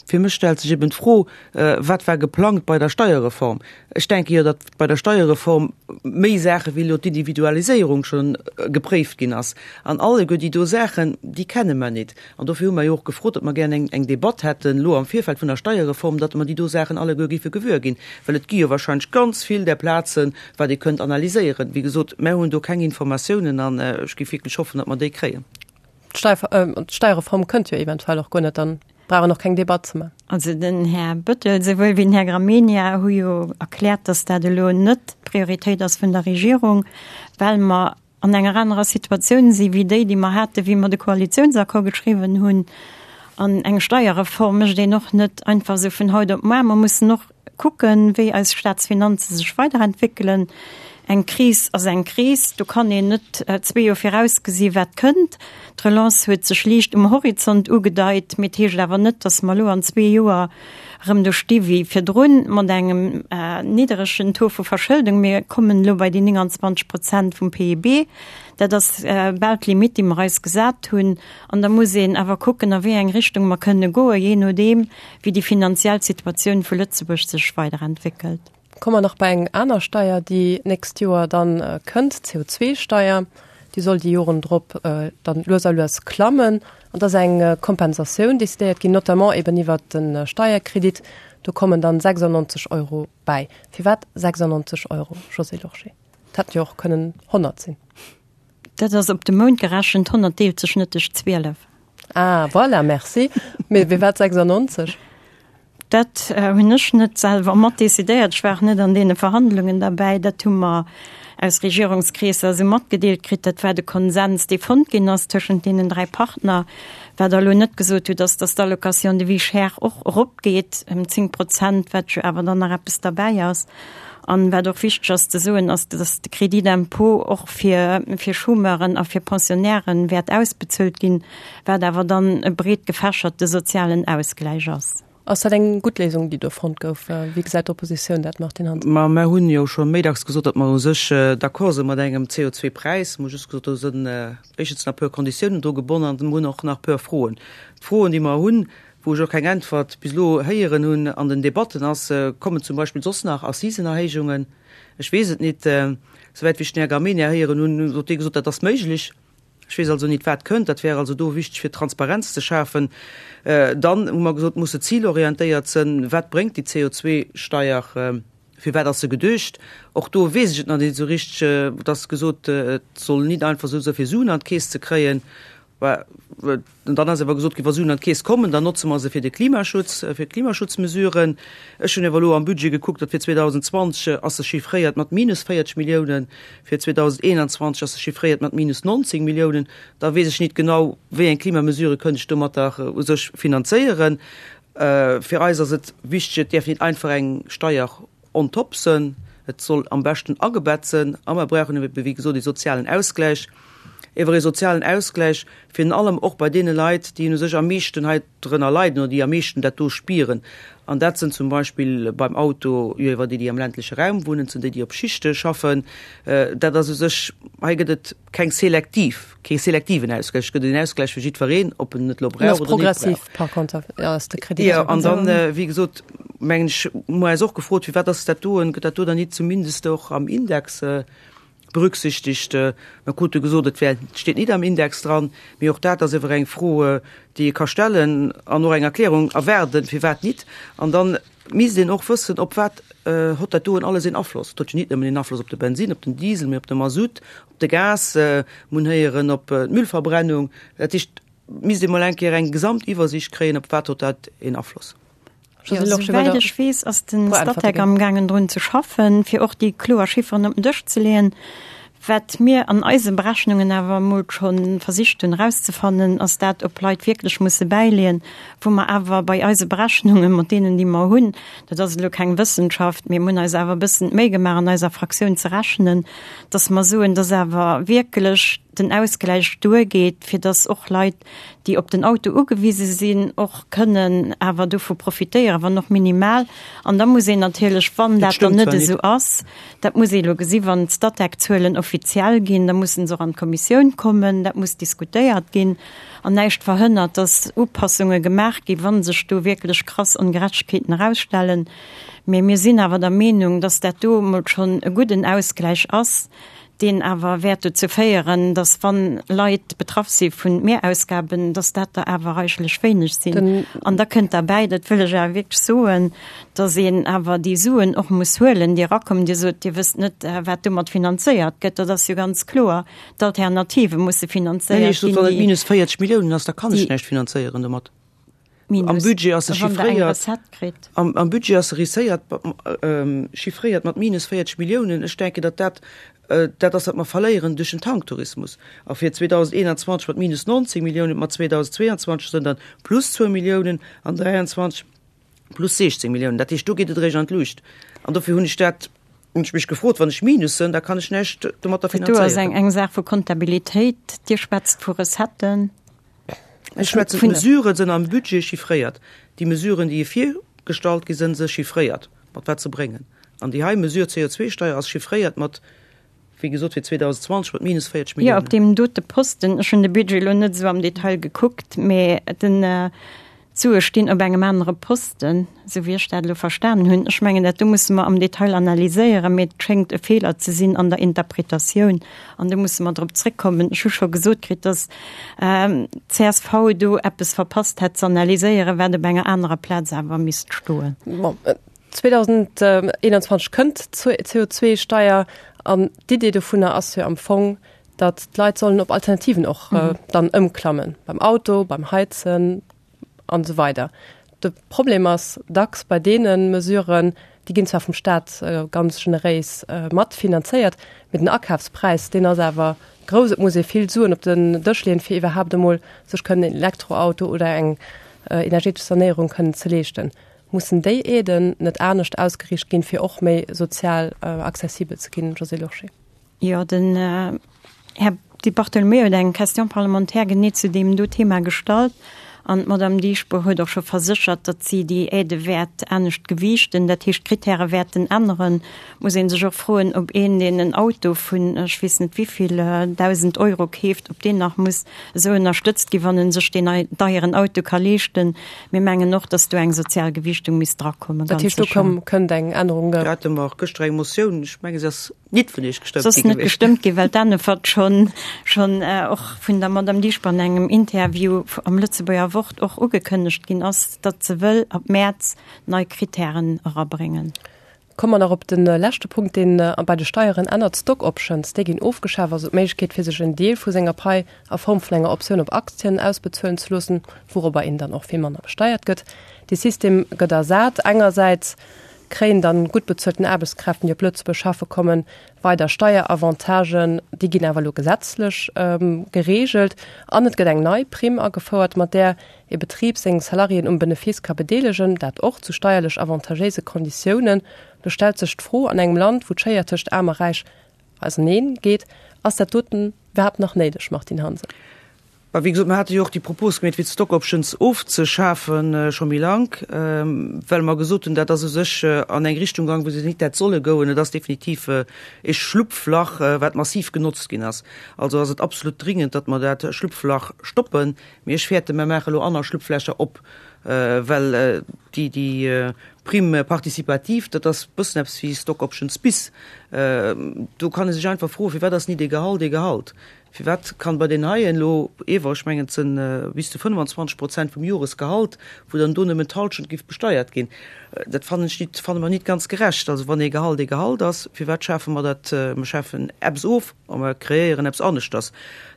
Fir mech stellt sech eben d'Fro, Wat war geplangt bei der Steierreform? Ech denke jo, datt bei der Steierreform méi Saache wéi elo d'Individualiséierung scho gepréift ginn ass. An alleguer déi do Saachen, déi kenne mer nit. An dofir hu mer jo och gefrot, datt mer gären eng, eng Debatt hätten elo am Virfeld vun der Steierreform, datt mer déi do Saachen alleguer géife gewuer ginn. Well et gi jo wahrscheinlech ganz vill där Plazen, wat ee kënnt analyséieren. Wéi gesot, mer hunn do keng Informatiounen an ech géif wierklech hoffen, datt mer déi kréien. D'Steierreform kënnt jo eventuell och guer net, dann brauch een och keng Debatt ze man. Also den Här Bettel souwuel wéi den Här Gramegna hu jo erkläert, datt dat elo net d'Prioritéit ass vun der Regierung, well mer an enger anerer Situatioun si wéi déi, déi mer haten, wéi mer de Koalitiounsaccord geschriwwen hunn. An eng Steierreform mécht een och net einfach esou vun haut op muar. Mer mussen och kucken, wéi eis Staatsfinanze sech weiderentwéckelen. Eng Kris ass eng Kris, do kann een net zwee Joer virausgesi wat kënnt. D'Relance huet sech liicht um Horizont ugedeit, mee et heescht awer net, datt mer elo an zwee Joer erëm do sti wéi virdrun mat engem nidderegen Taux vu Verschëldung. Mir kommen elo bei déi 29 Prozent vum PIB. Dat ass bal d'Limitt, déi mer eis gesat hunn. An da muss een awer kucken, a wéi eng Richtung mer kënne goen, jee nodeem, wéi déi finanziell Situatioun vu Lëtzebuerg sech weiderentwéckelt. Komme mer nach bei eng aner Steier, déi d'nächst Joer dann kënnt, d'CO2-Steier. Déi soll déi Joren drop dann lues a lues klammen. An et ass eng Kompensatioun decidéiert ginn, notamment eben iwwert de Steierkredit. Do kommen dann 96 Euro bäi. Firwat 96 Euro, Josée Lorsché? Et hätten jo och kënnen 100 sinn. Dat ass op de Mount gerechent, 100 deelt sech net duerch 12. Ah, voilà, merci. Mee firwat 96? Dat hunn ech net selwer mat decidéiert. Ech war och net an deene Verhandlungen derbäi. Dat hu mer aus Regierungskreesser esou matgedeelt kritt. Dat war de Konsens, dee fonnt ginn ass tëschent deenen 3 Partner. Wat Der elo net gesot hutt, ass, dass d'Allocation de vie chère och eropgeet ëm 10 Prozent, wat jo awer dann nach eppes derbäi ass. An wat och wichteg ass ze soen, ass, dass de Crédit d'impôt och fir, fir Chômeuren a fir Pensionnairen wäert ausbezuelt ginn, wat awer dann e breet gefächerte sozialen Ausgläich ass. Ass dat eng gutt Léisung, déi do fonnt gouf? Wéi gesäit d'Oppositioun dat, Martine Hansen? Ma mer hunn jo scho méi dacks gesot, datt mer u sech d'accord si mat engem CO2-Präis. Mer hu just gesot, do sinn éischtens nach e puer Konditiounen dru gebonnen an mer hunn och nach e puer Froen. D'Froen, déi mer hunn, wou ech och keng Äntwert bis elo héieren hunn an den Debatten, ass, Kommen zum Beispill soss nach Assisenerhéijungen? Ech weess et nit. Souwäit wéi ech den Här Gramegna héieren hunn, huet dee gesot, dat ass méiglech. Ech weess also nit, wat kënnt. Dat wär also do wichteg, fir Transparenz ze schafen. Dann hu mer gesot, muss se zilorientéiert sënn. Wat bréngt déi CO2-Steier? Fir wat ass se geduecht? Och do weess ech et nach nit esou richteg. Et ass gesot, et soll nit einfach esou sënn, fir Suen an d'Keess ze kréien. An dann ass awer gesot ginn, wa Suen an d'Keess kommen, dann notze mer se fir de Klimaschutz, fir d'Klimaschutzmesuren. Ech hunn awer elo am Budget gekuckt, datt fir 2020 ass se chiffréiert mat minus 40 Milliounen, fir 2021 ass se chiffréiert mat minus 19 Milliounen. Da weess ech nit genau, wéi eng Klimamesure kënnt ech domatter u sech finanzéieren. Fir eis ass et wichteg, et däerf nit einfach eng Steier on top sënn, et soll am beschten agebett sënn a mer brauchen ebe wéi gesot ee sozialen Ausgläich, ewer ee sozialen Ausgläich virun allem och bei deene Leit, déi u sech am meeschten hei drënner leiden oder déi am meeschten dat do spieren. An dat sënn zum Beispill beim Auto jo ewer déi, déi am ländleche Raum wunnen, et sënn déi, déi op Schichte schaffen. Dat ass u sech, hei gëtt et keng selektiv, kee selektiven Ausgläich, et gëtt een Ausgläich fir jiddwereen, ob en et elo brauch oder net brauch. Par contre ass de Kredit. Jo, an dann, wéi gesot, mengen ech, hu mer eis och gefrot, firwat ass dat doen, gëtt dat do dann nit zumindest och am Index berücksichtigt? Mer krute gesot, et wär, et steet nit am Index dran, mee och dat ass ewer eng Fro, déi ee ka stellen an och eng Erklärung erwaarden, firwat nit. An dann misst een och wëssen, op wat hott dat doen alles een Afloss. Et huet jo nit nëmmen een Afloss op de Bensin, op den Diesel, mee op de Masutt, op de Gas, mer hunn héieren op d'Müllverbrennung. Dat heescht, misst ee mol eng Kéier eng Gesamtiwwersicht kréien, op wat hott dat een Afloss. Jo, souwäit ech weess, ass de Statec amgaangen drun ze schaffen, fir och déi kloer Chifferen op den Dësch ze leeën. Wat mir an eise Berechnungen awer emol scho versicht hunn erauszefannen, ass dat, ob Leit wierklech musse bäileeën, wou mer awer bei eise Berechnungen, mat deenen, déi mer hunn, dat ass elo keng Wëssenschaft, mee mir hunn eis awer e bëssen d'Méi gemaach an eiser Fraktioun ze rechnen, dass mer soen, dass awer wierklech den Ausgläich duergeet, fir dass och Leit, déi op den Auto ugewise sinn, och kënnen awer dovu profitéieren, wann och minimal. An da muss een natierlech, wann dat dann net esou ass, dat muss ee elo gesi wann d'Statec-Zuelen offiziell ginn, da mussen se och an d'Kommissioun kommen, dat muss diskutéiert ginn. An näischt verhënnert, dass Upassunge gemaach ginn, wa sech do wierklech krass Ongerechtegkeeten erausstellen. Mee mir sinn awer der Meenung, dass dat do emol schonn e gudden Ausgläich ass, deen awer wäert dozou féieren, dass wann Leit betraff si vun Mehrausgaben, dass dat der awer reichlich wéineg sinn. An da kënnt derbäi, dat wëll ech awer wierklech soen, dass een awer déi Suen och muss huelen, déi erakommen. Dir sot, Dir wësst net, wat domat finanzéiert gëtt. Dat ass jo ganz kloer, d'Alternative musse finanzéiert ginn. Nee, ech sot, wann et minus 40 Milliounen ass, da kann ech näischt finanzéieren domat. Minus, Am Budget ass se wann Der eng chiffréiert, Recette kritt. am, am Budget ass se risséiert, chiffréiert mat minus 40 Milliounen. Ech denken, datt dat dat ass, wat mer verléieren duerch den Tanktourismus. A fir 2021 mat minus 19 Milliounen, mat 2022 sënn dann plus zwou Milliounen an 23 plus 16 Milliounen. Dat heescht, do geet et eréischt an d'Luucht. An dofir hunn ech dat, hunn ech mech gefrot, wann ech Minus sënn, da kann ech näischt domatter Dat do ass eng, finanzéieren. eng Saach vu Kontabilitéit. Dir schwätzt vu Recetten. Ech schwätzen, d'Mesuren sënn am Budget chiffréiert. Déi Mesuren, déi virgestallt gi sënn, se chiffréiert, mat wat se bréngen. An déi hei Mesure, d'CO2-Steier, ass chiffréiert mat, wéi gesot, fir 2020 mat minus 40 Jo, Milliounen. op deem dote Posten, ech hunn de Budget elo net esou am Detail gekuckt, mä den. D'Sue stinn op engem anere Posten, esou wéi ech dat elo verstanen hunn. Ech mengen, dat do musse mer am Detail analyséieren, mee et schéngt e Feeler ze sinn an der Interpretatioun an do musse mer drop zréckkommen. Ech hu scho gesot kritt, dass d'CSV do eppes verpasst hätt ze analyséieren, wat op enger anerer Plaz awer misst stoen. Bon, 2021 kënnt d'CO2-Steier an d'Idee dovunner ass jo am Fong, datt d'Leit sollen op Alternativen och dann ëmklammen, beim Auto, beim Heizen an esou weider. De Problem ass dacks bei deene Mesuren, déi ginn zwar vum Staat ganz generéis mat finanzéiert, mee den Akafspräis, deen ass awer grouss. Et muss ee vill Suen op den Dësch leeën, fir iwwerhaapt emol sech kënnen en Elektroauto oder eng energetesch Sanéierung kënnen ze leeschten. Mussen déi Aiden net anescht ausgeriicht ginn, fir och méi sozial accessibel ze ginn, Josée Lorsché? Jo, den Här Di Bartolomeo huet eng Question parlementaire genee zu deem do Thema gestallt an d'Madame Dieschbourg huet och scho verséchert, datt si déi Aidë wäert anescht gewiichten, dat heescht d'Kritäre wäerten änneren. Muss ee sech och froen, ob een, deen en Auto vun ech weess net wivill 1.000 Euro keeft, ob deen nach muss esou ënnerstëtzt ginn, wann e sech deen deieren Auto ka leeschten. Mir mengen och, datt do eng sozial Gewiichtung misst drakommen, ganz sécher. Dat heescht, do kënnt eng Ännerung? Do hate mer och gëschter eng Motioun, ech menge se ass Nit vun Iech gestëmmt gi gewiescht. Gestëmmt gi, well d'Änefert schonn schonn och vun der Madame Dieschbourg an engem Interview am Lëtzebuerger Wort och ugekënnegt ginn ass, datt se wëll ab Mäerz nei Krittären erabréngen. Komme mer nach op de leschte Punkt, deen bei de Steieren ännert, Stock Options. Déi ginn ofgeschaf, also d'Méiglechkeet fir sech en Deel vu senger Pai a Form vun enger Optioun op Aktien ausbezuelen ze loossen, wourobber een dann och vill manner besteiert gëtt. Dee System gëtt ersat engersäits kréien dann gutt bezuelten Aarbechtskräften, déi op Lëtzebuerg schaffe kommen, weider Steieravantagen. Déi ginn awer elo gesetzlech gereegelt. An et gëtt eng nei Primm agefouert, mat där e Betrib seng Salariéen um Benefice ka bedeelegen, dat och zu steierlech avantagéise Konditiounen. Do stellt sech d'Fro, an engem Land, wou d'Schéier tëscht Aarm a Räich auseneen geet, ass dat doten iwwerhaapt nach néideg, Martine Hansen? Bah, wéi gesot, mer hate jo och déi Propos gemeet, fir d'Stock Options ofzeschafen, scho méi lank, well mer gesot hunn, dat ass u sech an eng Richtung gaang, wou se nit hätt solle goen. Et ass definitiv e Schlupflach, wat massiv genotzt ginn ass. Also ass et absolut dringend, datt mer dat Schlupflach stoppen. Mee ech fäerten, mer maache elo aner Schlupflächer op, well déi, déi Prime participative, dat ass e bëssen eppes wéi Stock Options bis. Do kann ee sech einfach froen, Firwat ass nit ee Gehalt ee Gehalt? Firwat kann bei den heien elo ewer, ech mengen et sënn bis zu 25 Prozent vum Joresgehalt, wou dann do nëmmen d'Halschent giff besteiert ginn? Dat fannen ech nit, fanne mer nit ganz gerecht. Also wann ee Gehalt ee Gehalt ass, firwat schafe mer dat, mer schafen eppes of a mer kreéieren eppes aneschters.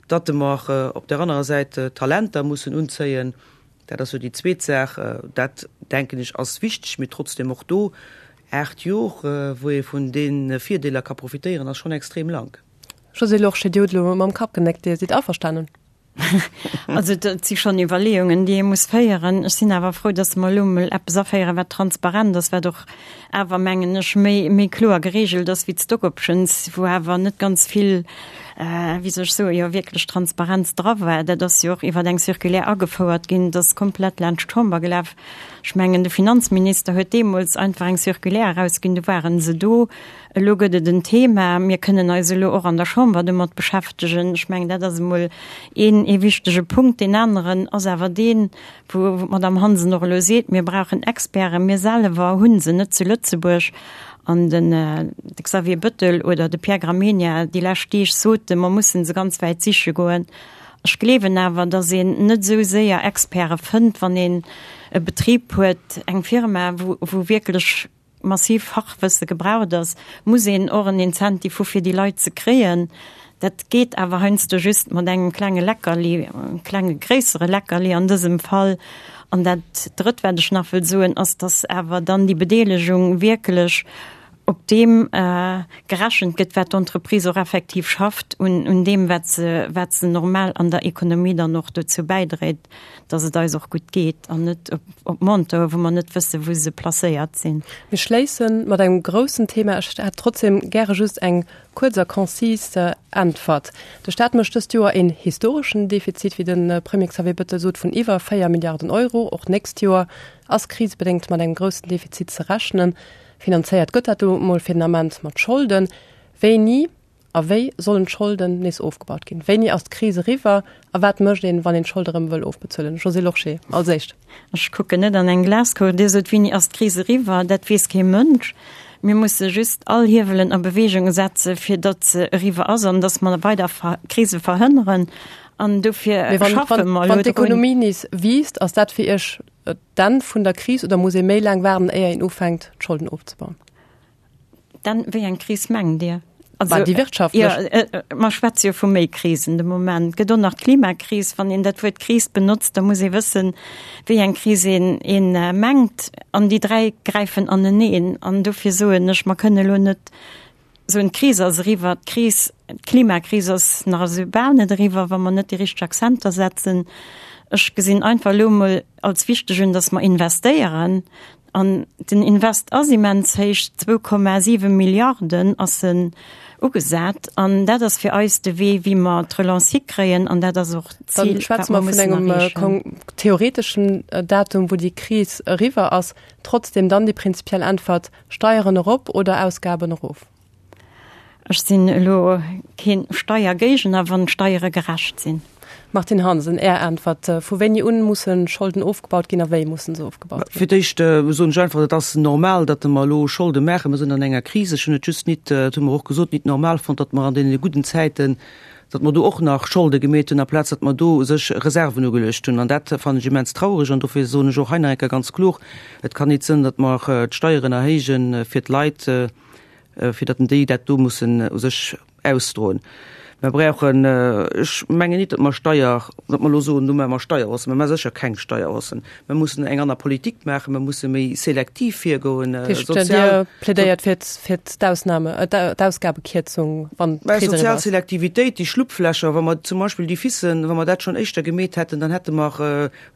Datt mer op där anerer Säit Talenter mussen unzéien, dat ass jo déi zweet Saach, dat denken ech ass wichteg, mee trotzdem och do 8 Jor, wou ee vun de Virdeeler ka profitéieren, ass schonn extrem lank. Josée Lorsché, Dir hutt elo mam Kapp genéckt, Dir sidd averstanen? Also dat si schonn Iwwerleeungen, déi ee muss féieren. Ech sinn awer frou, datt mer elo emol eppes aféieren, wat transparent ass, wat och awer, mengen ech, méi, méi kloer geregelt ass wéi d'Stock Options, wou awer net ganz vill, wéi soll ech soen, jo wierklech Transparenz dra war. Dat ass jo och iwwer eng Circulaire agefouert ginn, dat ass komplett laanscht d'Chamber gelaf. Ech mengen, de Finanzminister huet deemools einfach eng Circulaire erausginn, du ware se do. Elo gëtt et en Thema. Mir kënnen eis elo och an der Chamber domat beschäftegen. Ech mengen, dat ass emol een, ee wichtege Punkt. Deen aneren ass awer deen, wou d'Madame Hansen och elo seet, Mir brauchen Experten. Mir selwer hu se net zu Lëtzebuerg. An den de Xavier Bettel oder de Pierre Gramegna déi lescht Deeg soten, mer mussen se ganz wäit siche goen. Ech gleewen awer, datt een net esou séier Experte fënnt, wann een e Betrib huet, eng Firma, wou, wou wierklech massiv Fachwësse gebraucht ass, muss een och en Incentive hu fir déi Leit ze kréien. Dat geet awer heiansdo just mat engem klenge Leckerli, engem klenge gréissere Leckerli an dësem Fall. An dat Drëtt, wat ech nach wëll soen, ass, dass awer dann déi Bedeelegung wierklech op deem gerechent gëtt, wat d'Entreprise och effektiv schafft, un deem, wat se, wat se normal an der Ekonomie dann och dozou bäidréit. dass et eis och gutt geet an net op Montoe wou mer net wësse wou se placéiert sinn. Mir schléisse mat engem groussen Thema. Ech hätt trotzdem gäre just eng kuerz a konzis Äntwert. De Staat mécht dëst Joer een historeschen Defizit, wéi de Premier Xavier Bettel sot, vun iwwer 4 Milliarden Euro. Och d'nächst Joer ass krisebedéngt mat engem groussen Defizit ze rechnen. Finanzéiert gëtt dat elo mol fir den Ament mat Scholden. Wéini? A wéi sollen d'Scholden nees ofgebaut ginn? Wéini ass d'Kris eriwwer a wat mécht een, wann een d'Scholde erëm wëll ofbezuelen? Josée Lorsché als éischt. Ech kucken net an eng Glaskugel. Dir sot, Wéini ass d'Kris eriwwer? Dat weess kee Mënsch. Mir musse just all Hiewelen a Beweegung setze fir datt se eriwwer ass an datt mer weider Krise verhënneren. An dofir schaffe mer elo drun. Wann d'Ekonomie nees wiisst, ass dat fir Iech d'Enn vun der Kris oder muss ee méi laang waarden, éier een ufänkt, d'Scholden ofzebauen? Dann, wéi eng Kris mengt Dir? Also, déi wirtschaftlech. Ja, äh, äh, mer schwätze jo vu méi Krisen de Moment. Gëtt och nach d'Klimakris. Wann een dat Wuert Kris benotzt, da muss ee wëssen, wéi eng Kris een, een äh, mengt. An déi dräi gräifen aneneen. An dofir soen ech, mer kënne elo net soen, d'Kris ass eriwwer. D'Kris, d'Klimakris ass nach esou bal net eriwwer, wa mer net déi richteg Akzenter setzen. Ech gesinn einfach elo emol als wichteg un, datt mer investéieren, An den Invest ass immens héich, 2,7 Milliarden ass en ugesat. An dat ass fir eis de Wee, wéi mer d'Relance hikréien. An dat ass och d'Zil, wat mer mussen erreechen. Dann schwätze mer vun engem theoreteschen Datum, wou déi Kris eriwwer ass. Trotzdem dann déi prinzipiell Äntwert, Steieren erop oder Ausgaben erof? Ech sinn elo keen Steiergéigner, wann d'Steiere gerecht sinn. Martine Hansen, Är Äntwert, Vu wéini un mussen Scholden ofgebaut ginn a wéi mussen se ofgebaut ginn? Fir d'éischt soen ech einfach, et ass normal, datt mer elo Scholde maachen. Mer sinn an enger Kris. Ech hunn et just nit, dat hu mer och gesot, nit normal fonnt, datt mer an deene gudden Zäiten, datt mer do och nach Scholde gemeet hunn, amplaz datt mer do u sech Reserven ugeluecht hunn. An dat fannen ech immens trauereg. An dofir soen ech och hei nach eng Kéier ganz kloer, Et kann nit sënn, datt mer d'Steieren erhéijen fir d'Leit, fir datt déi dat do mussen u sech ausdroen. Mer brauchen, ech mengen nit, datt mer Steier, datt mer elo soen, elo maache mer Steierhaussen. Mer maache sécher keng Steierhaussen. Mer mussen eng aner Politik maachen, mer musse méi selektiv virgoen. Dat heescht, Dir plädéiert fir fir d'Ausnahme, d'Ausgabekierzung, wann d'Kris eriwwer ass? Sozial Selektivitéit, déi Schlupflächer, wa mer zum Beispill déi Fissen, wa mer dat schonn éischter gemeet hätten, dann hätte mer,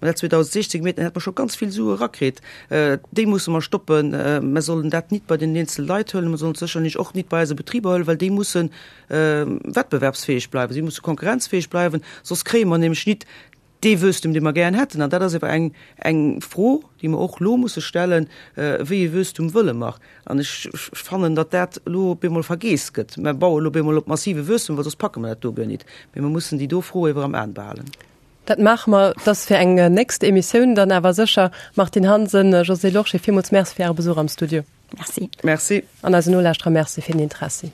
Mä dat 2016 gemeet, dann hätt mer scho ganz vill Sue erakritt. Déi musse mer stoppen. Mer sollen dat nit bei den eenzele Leit huelen, mer sollen et sécherlech och nit bei eise Betriber huelen, well déi musse wettbewerbsfäeg bleiwen, si musse konkurrenzfäeg bleiwen, soss kréie mer nämlech nit dee Wuesstum, dee mer gären hätten. An dat ass ewer eng, eng Fro, déi mer och elo musse stellen, Wéi ee Wuesstum wëlle mer? An ech fannen, datt dat elo op eemol vergeess gëtt. Mer baue elo op eemol op massive Wuesstum, well soss packe mer dat do guer nit. Mee mer mussen déi do Fro ewer am Aen behalen. Dat maache mer. Dat ass fir eng nächst Emissioun dann awer sécher. Martine Hansen, Josée Lorsché, villmools Merci fir Äre Besuch am Studio. Merci. Merci. An eisen Nolauschterer Merci fir den Interessi.